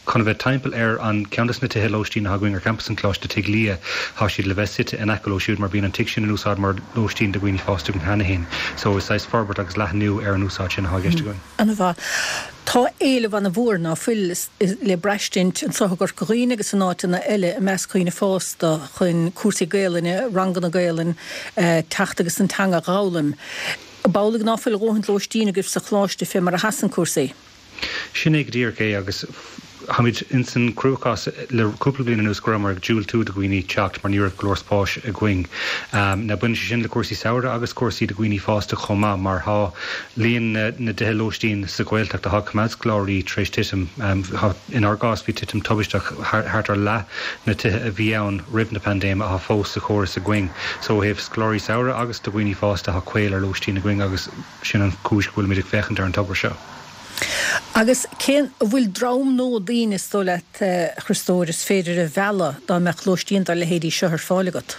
chun a bheith timpeall ar an ceann de na tithe lóistín atá againn ar champas an Choláiste, Tigh Lia. Tá siad le bheith suite in aice leo siúd mar bíonn an tigh sin in úsáid mar lóistín do dhaoine fásta againn cheana féin. So is saghas forbairt agus leathnú ar an úsáid sin atá i gceist againn. Ana-mhaith. Tá éileamh ana-mhór, ná fuil, le braistint anseo i gCorca Dhuibhne agus in áiteanna eile i measc dhaoine fásta chun cúrsaí Gaelainne, ranganna Gaelainne, teacht agus an teanga a dh'fhoghlaim. Ab amhlaidh ná fuil a dhóthaint lóistín agaibh sa choláiste fé mar a sheasann cúrsaí? Sin é go díreach é agus. Táimid ins an cruachás le cúpla bliain anuas go rabhamar ag diúltú do dhaoine teacht mar ní raibh go leor spáis againn. Now baineann sé sin le cúrsaí samhraidh agus cúrsaí do dhaoine fásta chomh maith mar thá líon na dtithe lóistín sa Ghaeltacht athá ag coimeád scoláirí tar éis titim. Thá, inár gcás bhí titim tubaisteach, thart ar leath na tithe a bhí ann roimh na paindéime athá fós sa chóras againn. So ó thaobh scoláirí samhraidh agus do dhaoine fásta thá caol ar lóistín againn agus sin an chúis go bhfuilimid ag féachaint ar an togra seo. Agus cén, an bhfuil dream nua daoine, is dóigh leat, a Chriostóir, is féidir a mhealladh dá mbeadh lóistín dá leithéidí seo ar fáil agat?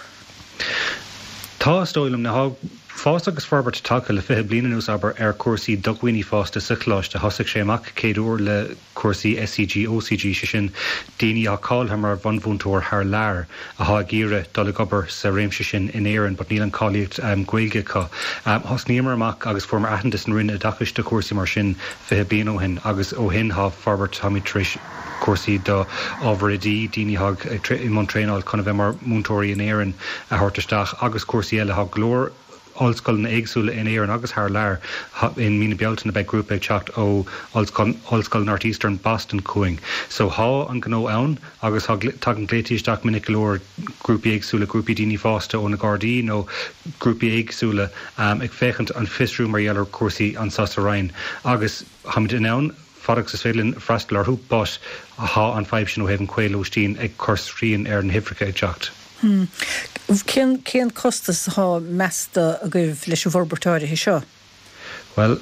Tá, is dóigh liom. Now tá fás agus forbairt tagtha le 20 bliain anuas, abair, ar chúrsaí do dhaoine fásta sa choláiste. Thosaigh sé amach céad uair le cúrsaí SCG, OCG, sé sin daoine atá cáilithe mar bhunmhúinteoir thar lear athá ag iarraidh dul ag obair sa réimse sin in Éirinn but níl an cáilíocht Gaeilge acu. Thosnaíomar amach agus fuaireamar aitheantas an Roinn Oideachais do chúrsaí mar sin 20 bliain ó shin agus ó shin thá forbairt, táimid tar éis cúrsaí do ábhar oidí, daoine athá i mbun traenáil chun a bheith mar mhúinteoirí in Éirinn a thabhairt isteach agus cúrsaí eile. Thá go leor ollscoileanna éagsúla in Éirinn agus thar lear. I mí na Bealtaine beidh grúpa ag teacht ó Ollscoil Northeastern Boston chugainn. So thá an gnó ann agus thá, tagann glaotaí isteach minic go leor, grúpaí éagsúla, grúpaí daoine fásta ó na Gardaí nó grúpaí éagsúla ag féachaint, ag fiosrú mar gheall ar chúrsaí anso sa Rinn agus tháimid in ann fad agus is féidir linn freastal orthu but thá an fadhb sin ó thaobh an caol lóistín ag cur srian ar na huimhreacha ag teacht. Cén, cén costas atá measta agaibh leis an bhforbairt áirithe seo? Bhuel,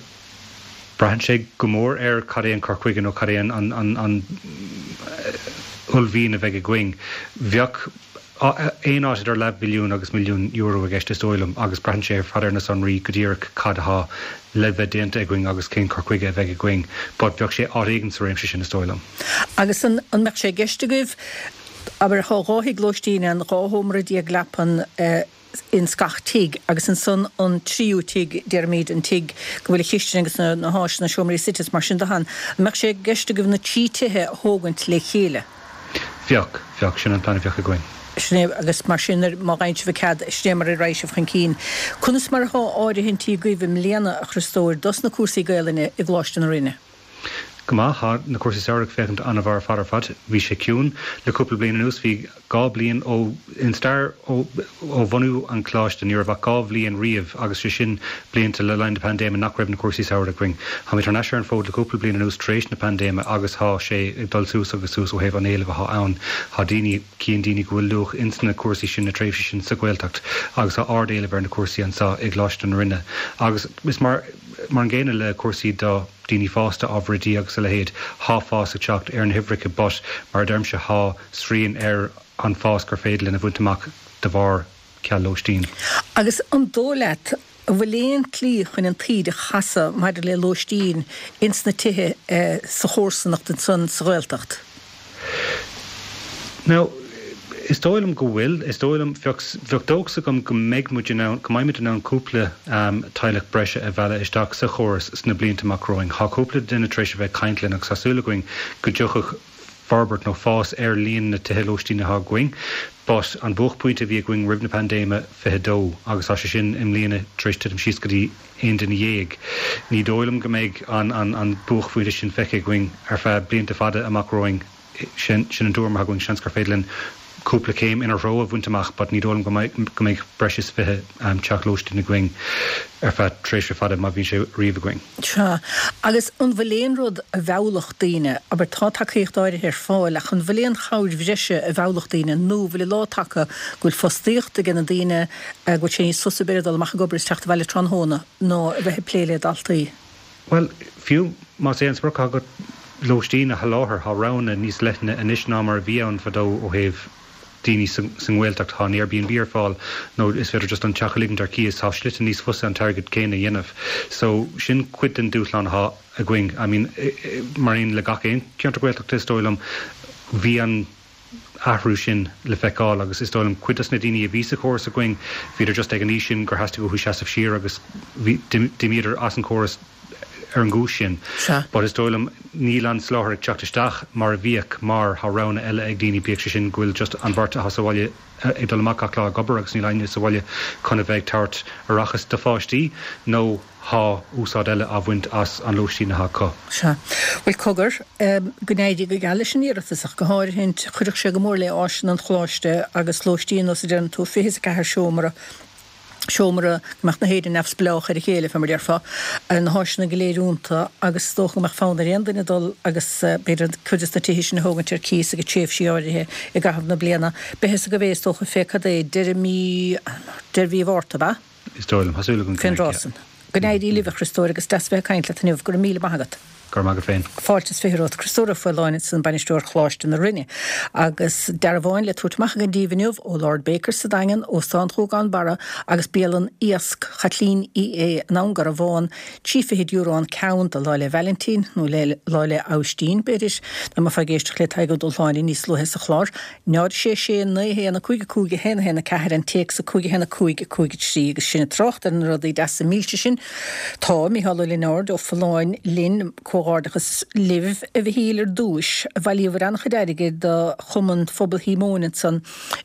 braitheann sé go mór ar cad é an cur chuige nó cad é an, an, an, an uaillmhian a bheidh againn. Bheadh aon áit idir leathmhilliún agus milliún euro i gceist is dóigh liom agus braitheann sé ar fad ar na sonraí go díreach cad athá le bheith déanta againn agus cén cur chuige a bheidh againn but bheadh sé áit éigin sa réimse sin is dóigh liom. Agus an, an mbeadh sé i gceist agaibh Abair, thá 12 thigh lóistín ann, 12 shómra leapan ins gach tigh, agus ansan an tríú tigh, déarfaimíd, an tigh go bhfuil an chistin agus na háiseanna, seomraí suite is mar sin de ann. An mbeadh sé i gceist agaibh na trí tithe a thógaint le chéile? Bheadh, bheadh. Sin an plean a bheadh againn. Sin é, agus mar sin, má fhaigheann sibh an cead, sin é mar a raghaidh sibh chun cinn. Conas mar athá áirithintí agaibh i mbliana, a Chriostóir, dos na cúrsaí Gaelainne i gColáiste na Rinne? Go maith. Thá na cúrsaí samhraidh ag féachaint an-mhaith ar fad ar fad. Bhí sé ciúin le cúpla bliain anuas. Bhí 2 bliain ó, in stair ó, ó bhunú an choláiste, ní raibh ach 2 bhliain riamh agus sé sin blianta le linn na paindéime nach raibh na cúrsaí samhraidh againn. Tháimid thar n-ais ar an bhfód le cúpla bliain anuas tar éis na paindéime agus thá sé ag dul suas agus suas ó thaobh an éilimh athá ann. Thá daoine, cíonn daoine go bhfuil luach ins na cúrsaí sin, na tréimhsí sin sa Ghaeltacht agus thá ard-éileamh ar na cúrsaí anso i gColáiste na Rinne agus is mar, Mar an gcéanna le cúrsaí do daoine fásta, ábhar oidí agus a leithéid, thá fás ag teacht ar na huimhreacha but mar a deirimse thá srian ar an fás gur féidir linn a bhaint amach de bharr ceal lóistín. Agus an dóigh leat an bhfuil aon tslí chun an taoide a chasadh maidir le lóistín ins na tithe sa chomharsanacht ansan sa Ghaeltacht? Now, is dóigh liom go bhfuil. Is dóigh liom, bheadh, bheadh dóchas agam go mbeidh muid in ann, go mbeimid in ann cúpla teaghlach breise a mhealladh isteach sa chóras sna blianta amach romhainn. Thá cúpla duine tar éis a bheith ag caint linn agus tá súil againn go dtiocfadh forbairt nó fás ar líon na tithe lóistín athá againn. But an buaicphointe a bhí againn roimh na paindéime, 22, agus tá sé sin i mbliana tar éis titim síos go dtí 11 duine. Ní dóigh liom go mbeidh an buaicphointe sin feicthe againn ar feadh blianta fada amach romhainn. Sin an tuairim atá againn. Seans gur féidir linn cúpla céim ina threo a bhaint amach but ní dóigh liom go mbeidh breis is 20 teach lóistín againn ar feadh tréimhse fada, má bhíonn sé riamh againn. Sea. Agus an bhfuil aon rud a mheallfadh daoine, abair tá tacaíocht áirithe ar fáil ach an bhfuil aon chabhair bhreise a mheallfadh daoine nó an bhfuil an lá tagtha go bhfuil fostaíocht ag na daoine, go bhfuil sé níos fusa b'fhéidir dul amach ag obair is teacht abhaile tráthnóna ná a bheith ag plé le daltaí? Bhuel, fiú más é an sprioc atá agat lóistín a sholáthar, tá roghanna níos leithne anois ná mar a bhí ann fadó ó thaobh daoine sa nGaeltacht. Tá an Airbnb ar fáil nó is féidir just an teach a ligint ar cíos. Tá slite níos fusa an t-airgead céanna a dhéanamh. So, sin cuid den dúshlán atá againn. I mean, mar aon le gach aon cheantar Gaeltachta is dóigh liom, bhí an. athrú sin le feiceáil agus is dóigh liom cuid dos na daoine a bhí sa chóras againn, bhíodar just ag an aois sin gur theastaigh uathu seasamh siar agus bhí, d'imíodar as an chóras. ar an gcúis sin. But is dóigh liom níl an soláthar ag teacht isteach mar a bhíodh mar tá roghanna eile ag daoine, bíodh sé sin go bhfuil just an bheirt atá sa bhaile ag dul amach gach lá ag obair agus níl éinne sa bhaile chun a bheith ag tabhairt aireachas do pháistí nó tá úsáid eile á bhaint as an lóistín atá acu. Sea. Bhuel, cogar, go n-éirí go geal leis an iarratas ach go háirithint, chuirfeadh sé go mór le áiseanna an Choláiste agus lóistín, nós a deireann tú, 24 seomra, seomra, go mbeadh na héinne neamhspleách ar a chéile, fé mar a déarfá, na háiseanna go léir iontu agus is dócha go mbeadh fonn ar aon duine dul agus b'fhéidir cuid des na tithe sin a thógaint ar cíos ag tréimhsí áirithe i gcaitheamh na bliana. Beidh fhios agaibh é is dócha fé cad é, deireadh mí, deireadh mhí Mhárta, ab ea? Is dóigh liom. Tá súil agam go Fén dtráth san. Go n-éirí libh, a Chriostóir, agus deas a bheith ag caint leat inniu. Go raibh míle maith agat. Go raibh maith agat féin. Fáilte is 20 romhat. Criostóir Ó Faoláin ansan, Bainisteoir Choláiste na Rinne. Agus dearbháin le tabhairt amach againn daoibh inniu ó Lord Baker sa Daingean, Óstán Ghuagán Barra agus Bialann Iasc Chaitlín Uí Aodha in Abhainn Garbhán, Trí fichid euro an ceann do Lá 'le Vailintín, nó le Lá 'le Abhaistín, b'fhéidir, dá mbeifeá ag éisteacht le Tadhg Ó Dúshláine níos luaithe sa chlár. 0 6 6 9 1 5 5 1 1 4 an téacs 5 1 5 5 3 agus sinn ag trácht ar na rudaí deasa milse sin. Tá Micheál Ó Lionáird ó Folláin linn. Comhghairdeachas libh, a Mhichíl, ar dtúis. Bhailíobhair an-chuid airgid do Chumann Phobal Shíomóin ansan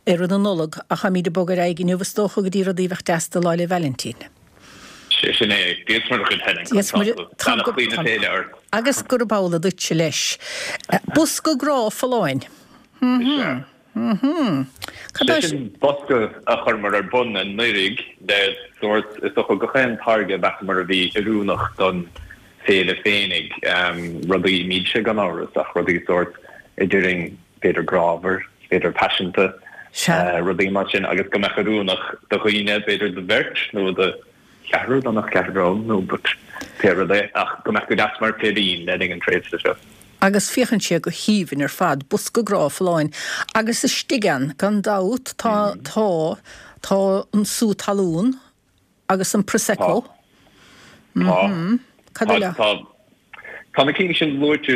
i rith na Nollag ach táimíd ag bogadh ar aghaidh inniu is dócha go dtí rudaí a bheadh deas do Lá 'le Vailintín. Sé sin é. Dia 's Muire dhuit Helen, conas tá tú? Beannachtaí na féile ort. Agus gurb amhlaidh duitse leis. Bosca grá Folláin. Is ea. Cad é Sé sin bosca a chuireamar ar bun anuraidh le sórt, is dócha, gach aon táirge a mheasamar a bhí oiriúnach don féile féinig. Rudaí milse gan amhras ach rudaí sórt a déarfainn b'fhéidir grámhar, b'fhéidir paiseanta, rudaí mar sin agus go mbeadh oiriúnach do dhaoine, b'fhéidir do bheirt nó do cheathrar, dá mbeadh ceathrar ann nó but pé rud é, ach go mbeadh go deas mar féirín le linn an tréimhse seo. Agus féachann sé go haoibhinn ar fad, bosca grá folláin. Agus istigh ann, gan dabht, tá, tá, tá an sú talún agus an Prosecco. Tá. Cad eile? Tá. Tá na cinn sin luaite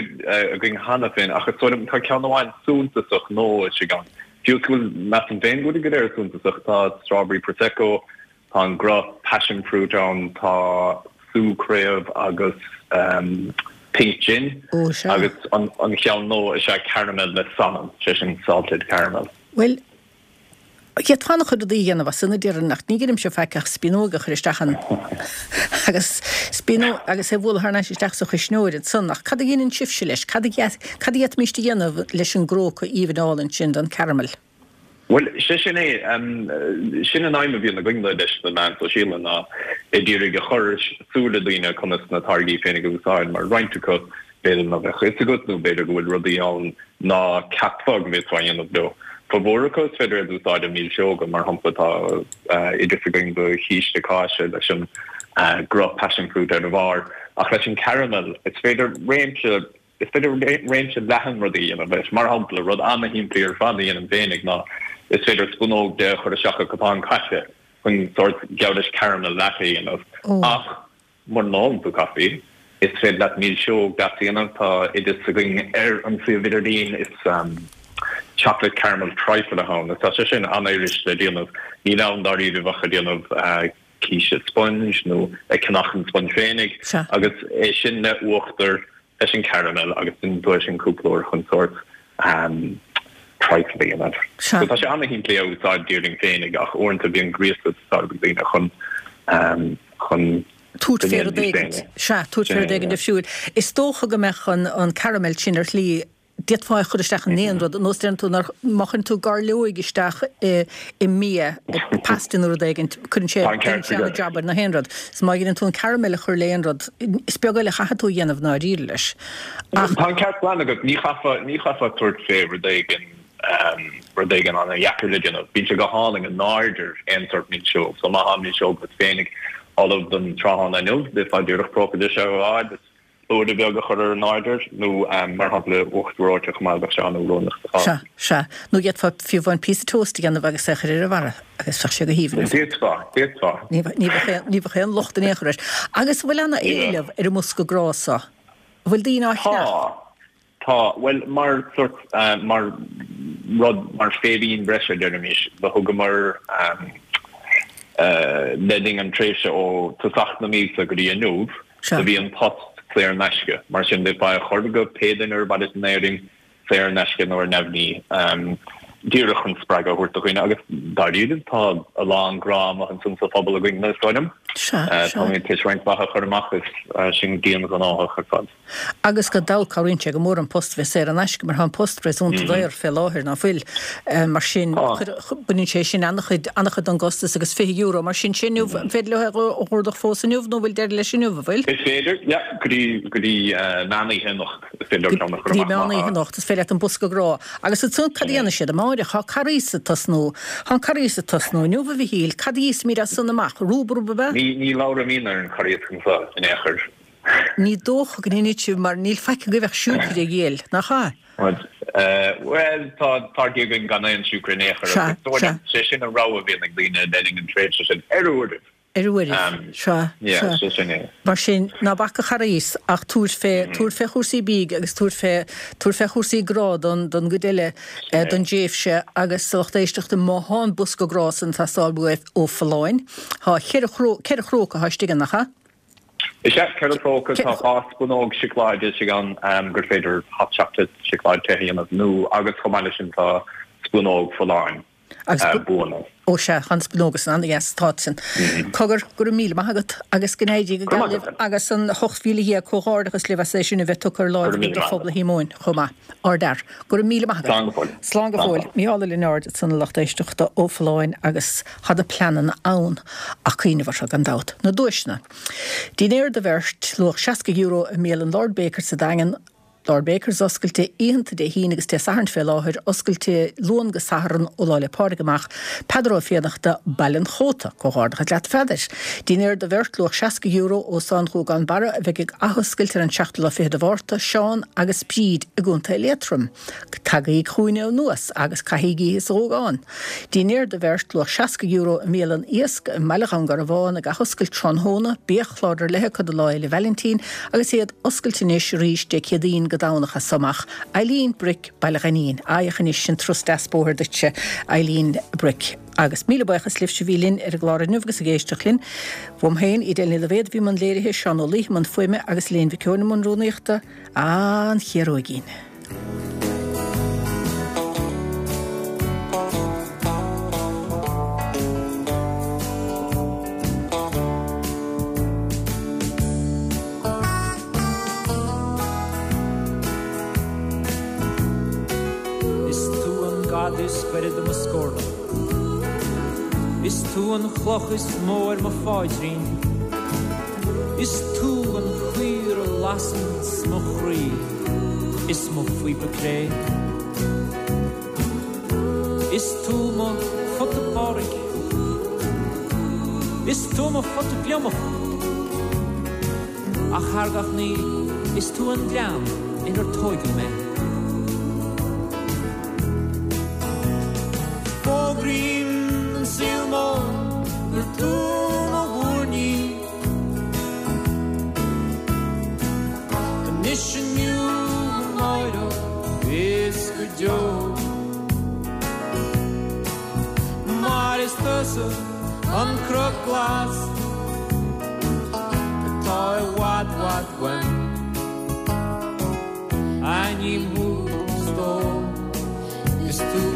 againn cheana féin ach is dóigh liom tá ceann amháin suntasach nua istigh ann. Fiú is go bhfuil, measaim féin go bhfuil go léir suntasach, tá Strawberry Prosecco, Tá an gruth passion fruit ann, tá sú craobh agus pink gin agus an cheann nua is ea caramel le salann, sé sin salted caramel. Bhuel, d'fhéadfá an-chuid rudaí a dhéanamh as sin a déarfainn ach ní dheinimse faic ach spíonóg a chur isteach ann agus spíonóg agus é a bhualadh thar n-ais isteach sa chuisneoir ansan ach cad a dheineann sibhse leis? Cad a d'fhéadfaimis a dhéanamh leis an gcróca aoibhinn álainn sin den caramel? Bhuel, sé sin é. Sin an aidhm a bhíonn againn leis na meáin sóisialta ná ag iarraidh a chur ar súile daoine conas na táirgí féinig a úsáid, mar roinnt acu b'fhéidir ná beadh fhios agat nó b'fhéidir go bhfuil rudaí ann ná ceapfá go bhféadfá a dhéanamh leo. Formhór acu is féidir iad a úsáid i milseoga, mar shampla tá oideas againn do chíste cáise leis an gcruth passion fruit ar a bharr, ach leis an caramel is féidir réimse Is féidir réimse leathan rudaí a dhéanamh leis. Mar shampla, rud ana-shimplí ar fad a dhéanaim féinig ná is féidir spúnóg de a chur isteach i gcupán caife chun sórt geall leis caramel latte a dhéanamh. Ach mura n-ólann tú caife, is féidir leat milseog deas a dhéanamh. Tá oideas againn ar an suíomh idirlín, is chocolate caramel trifle atá ann. Tá sé sin an-fhuirist le déanamh. Níl ann dáiríribh ach ag déanamh císte sponge nó ag ceannach an sponge féinig agus é sin le uachtar leis an caramel agus déanann tú é sin cúpla uair chun sórt trifle a dhéanamh. So tá sé ana-shimplí a úsáid déarfainn féinig ach uaireanta bíonn gríosadh ag teastáil ó daoine chun chun tabhairt fé rud éigin. Sea, tabhairt fé rud éigin difriúil. Is dócha go mbeadh an caramel sin ar shlí D'fhéadfá é a chur isteach in aon rud, nós deireann tú nár, má chuireann tú gairleoig isteach i i mbia, i pasta nó rud éigin, cuireann sé, déanann sé an-jab ar na haon rud. So má dheineann tú an caramel a chur le aon rud, is beag eile a chaithfidh tú a dhéanamh i ndáiríre leis. Ach. Tá an ceart glan agat, ní chaithfeá, ní chaithfeá tabhairt fé rud éigin, rud éigin an-dheacair le déanamh. Bíonn sé go hálainn in airde ar aon sórt milseog. So má tá milseog agat féinig ullamh don tráthnóna inniu, d'fhéadfá díreach próca de seo a fháil is Blúire beag a chur ar an airde, nó mar shampla uachtar reoite chomh maith, bheadh sé an-oiriúnach sa chás. Sea, sea. Nó d'fhéadfá fiú amháin píosa toast a dhéanamh agus é a chur ar a bharra agus bheadh sé go haoibhinn. D'fhéadfá, d'fhéadfá. Ní bheadh, ní bheadh aon locht in aon chor air. Agus an bhfuil ana-éileamh ar an mbosca grá seo? An bhfuil daoine á cheannach? Tá. Tá, bhuel, mar sórt, mar rud, mar féirín breise, deirimis, do thugamar le linn an tréimhse ó tosach na míosa go dtí inniu, do bhí an post. saor in aisce. Mar sin d'fhéadfá é a chur go pé duine ar mhaith leat in Éirinn, saor in aisce nó ar neamhní, díreach chun spreagadh a thabhairt do dhaoine. Agus dáiríre, tá a lán grá amuigh ansan sa phobal againn, is dóigh liom. Táimid tar éis roinnt mhaith a chur amach is sinn dian-ghnóthach ar fad. Agus gan dabht cabhraíonn sé go mór an post a bheith saor in aisce mar tá an post réasúnta daor fé láthair, ná fuil? Mar sin, baineann sé sin an-chuid, an-chuid den gcostas agus €20 mar sin, sin inniu, an féidir leo é a dh'ordach fós inniu nó an bhfuil deireadh leis inniu, an bhfuil? Is féidir, yeah, go dtí, go dtí meán oíche anocht is féidir leo ceann a chur amach. Go dtí meán oíche anocht is féidir leat an bosca grá. Agus ansan cad a dhéanfaidh siad amáireach? Tá Carghas ag tosnú, tá an Carghas ag tosnú inniu a Mhichíl, cad a íosfaimid as san amach? Rúbarb ab ea? Ní, ní labhraímidne ar an Charghas anseo in aon chor. Ní dócha go ndéanfaidh sibh mar níl faic agaibh ach siúcra a dhíol, nach ea? Bhuel, tá táirgí againn gan aon siúcra in aon chor agus is dóigh liom, sé sin an rogha a bhíonn ag daoine le linn an tréimhse sin, ar uairibh. Ar uairibh, sea, sea. Sé sin é. Mar sin, ná bac an Charghas ach tabhair fé, tabhair fé chúrsaí bídh agus tabhair fé, tabhair fé chúrsaí grá don, don gcuid eile den dtréimhse agus a lucht éisteachta, má thá an bosca grá san ag teastáil uaibh ó Folláin, thá cheithre chró, ceithre chróca athá istigh ann, nach ea? Is ea, 4 próca, tá 2 spúnóg seacláide istigh ann gur féidir hot chocolate, seacláid te a dhéanamh, nó agus chomh maith leis sin tá spúnóg folláin buanna. Ó sea, tá na spúnóga san an-dheas, tá sin. Cogar, go raibh míle maith agat agus go n-éirí go geal libh agus an 18,000 comhghairdeachas libh as é sin a bheith tugtha ar láimh agaibh do phobal Shíomóin chomh maith. Ardfhear. Go raibh míle maith agat. Slán go fóill. Slán go fóill. Mícheál Ó Lionáird ansan a lucht éisteachta ó Folláin agus Tá na pleananna ann ach cuimhneamh orthu, gan dabht. Na duaiseanna. Dinnéar do bheirt, luach €60 i mbialann Lord Baker sa Daingean, Lord Baker's oscailte oícheanta Dé hAoine agus Dé Sathairn fé láthair, oscailte Luan go Satharn ó Lá 'le Pádraig amach, Peadar Ó Fiannachta, Baile an Chóta. Comhghairdeachas leat a Pheadair. Dinnéar do bheirt, luach €60 Óstán Ghuagán Barra a bheidh ag athoscailt ar an seachtú lá fichead de Mhárta, Seán agus Bríd i gContae Liatroim. Tagaigí chugainne anuas agus caithigí oíche sa Ghuagán. Dinnéar do bheirt, luach €60 i mbialann Iasc i mBaile Dhún Garbhán ag athoscailt tráthnóna, biachlár ar leith acu do Lá Fhéile Vailintín agus iad oscailte anois arís Dé Céadaoin go Domhnach as so amach. Eileen Brick, Baile Ghainín. Féach anois sin turas deas bóthair duitse, Eileen Brick. Agus míle buíochas libhse a bhí linn ar an gclár inniu agus ag éisteacht linn. Uaim féin, Edel Ní Loibhéad a bhí i mbun léirithe, Seán Ó Laoithe i mbun fuaime agus Elaine Mhic Eoin i mbun rúnaíochta. An Chiaróigín. Is tú an gad is gaire do mo scornach. Is tú an chloch is mó ar mo pháidrín. Is tú an chaor a lasanns mo chroí is mo phíopa cré. Is tú mo phota Pádraig. Is tú mo phota gliomach. Ach thar gach ní, is tú an gleann inar tóigeadh mé. Fógraím don saol mór gur tú mo mhúirnín. Anois inniu amáireach is go deo. Mar is tusa an cnoc glas atá i bhfad bhfad uaim. Aithním thú, stór, is tú.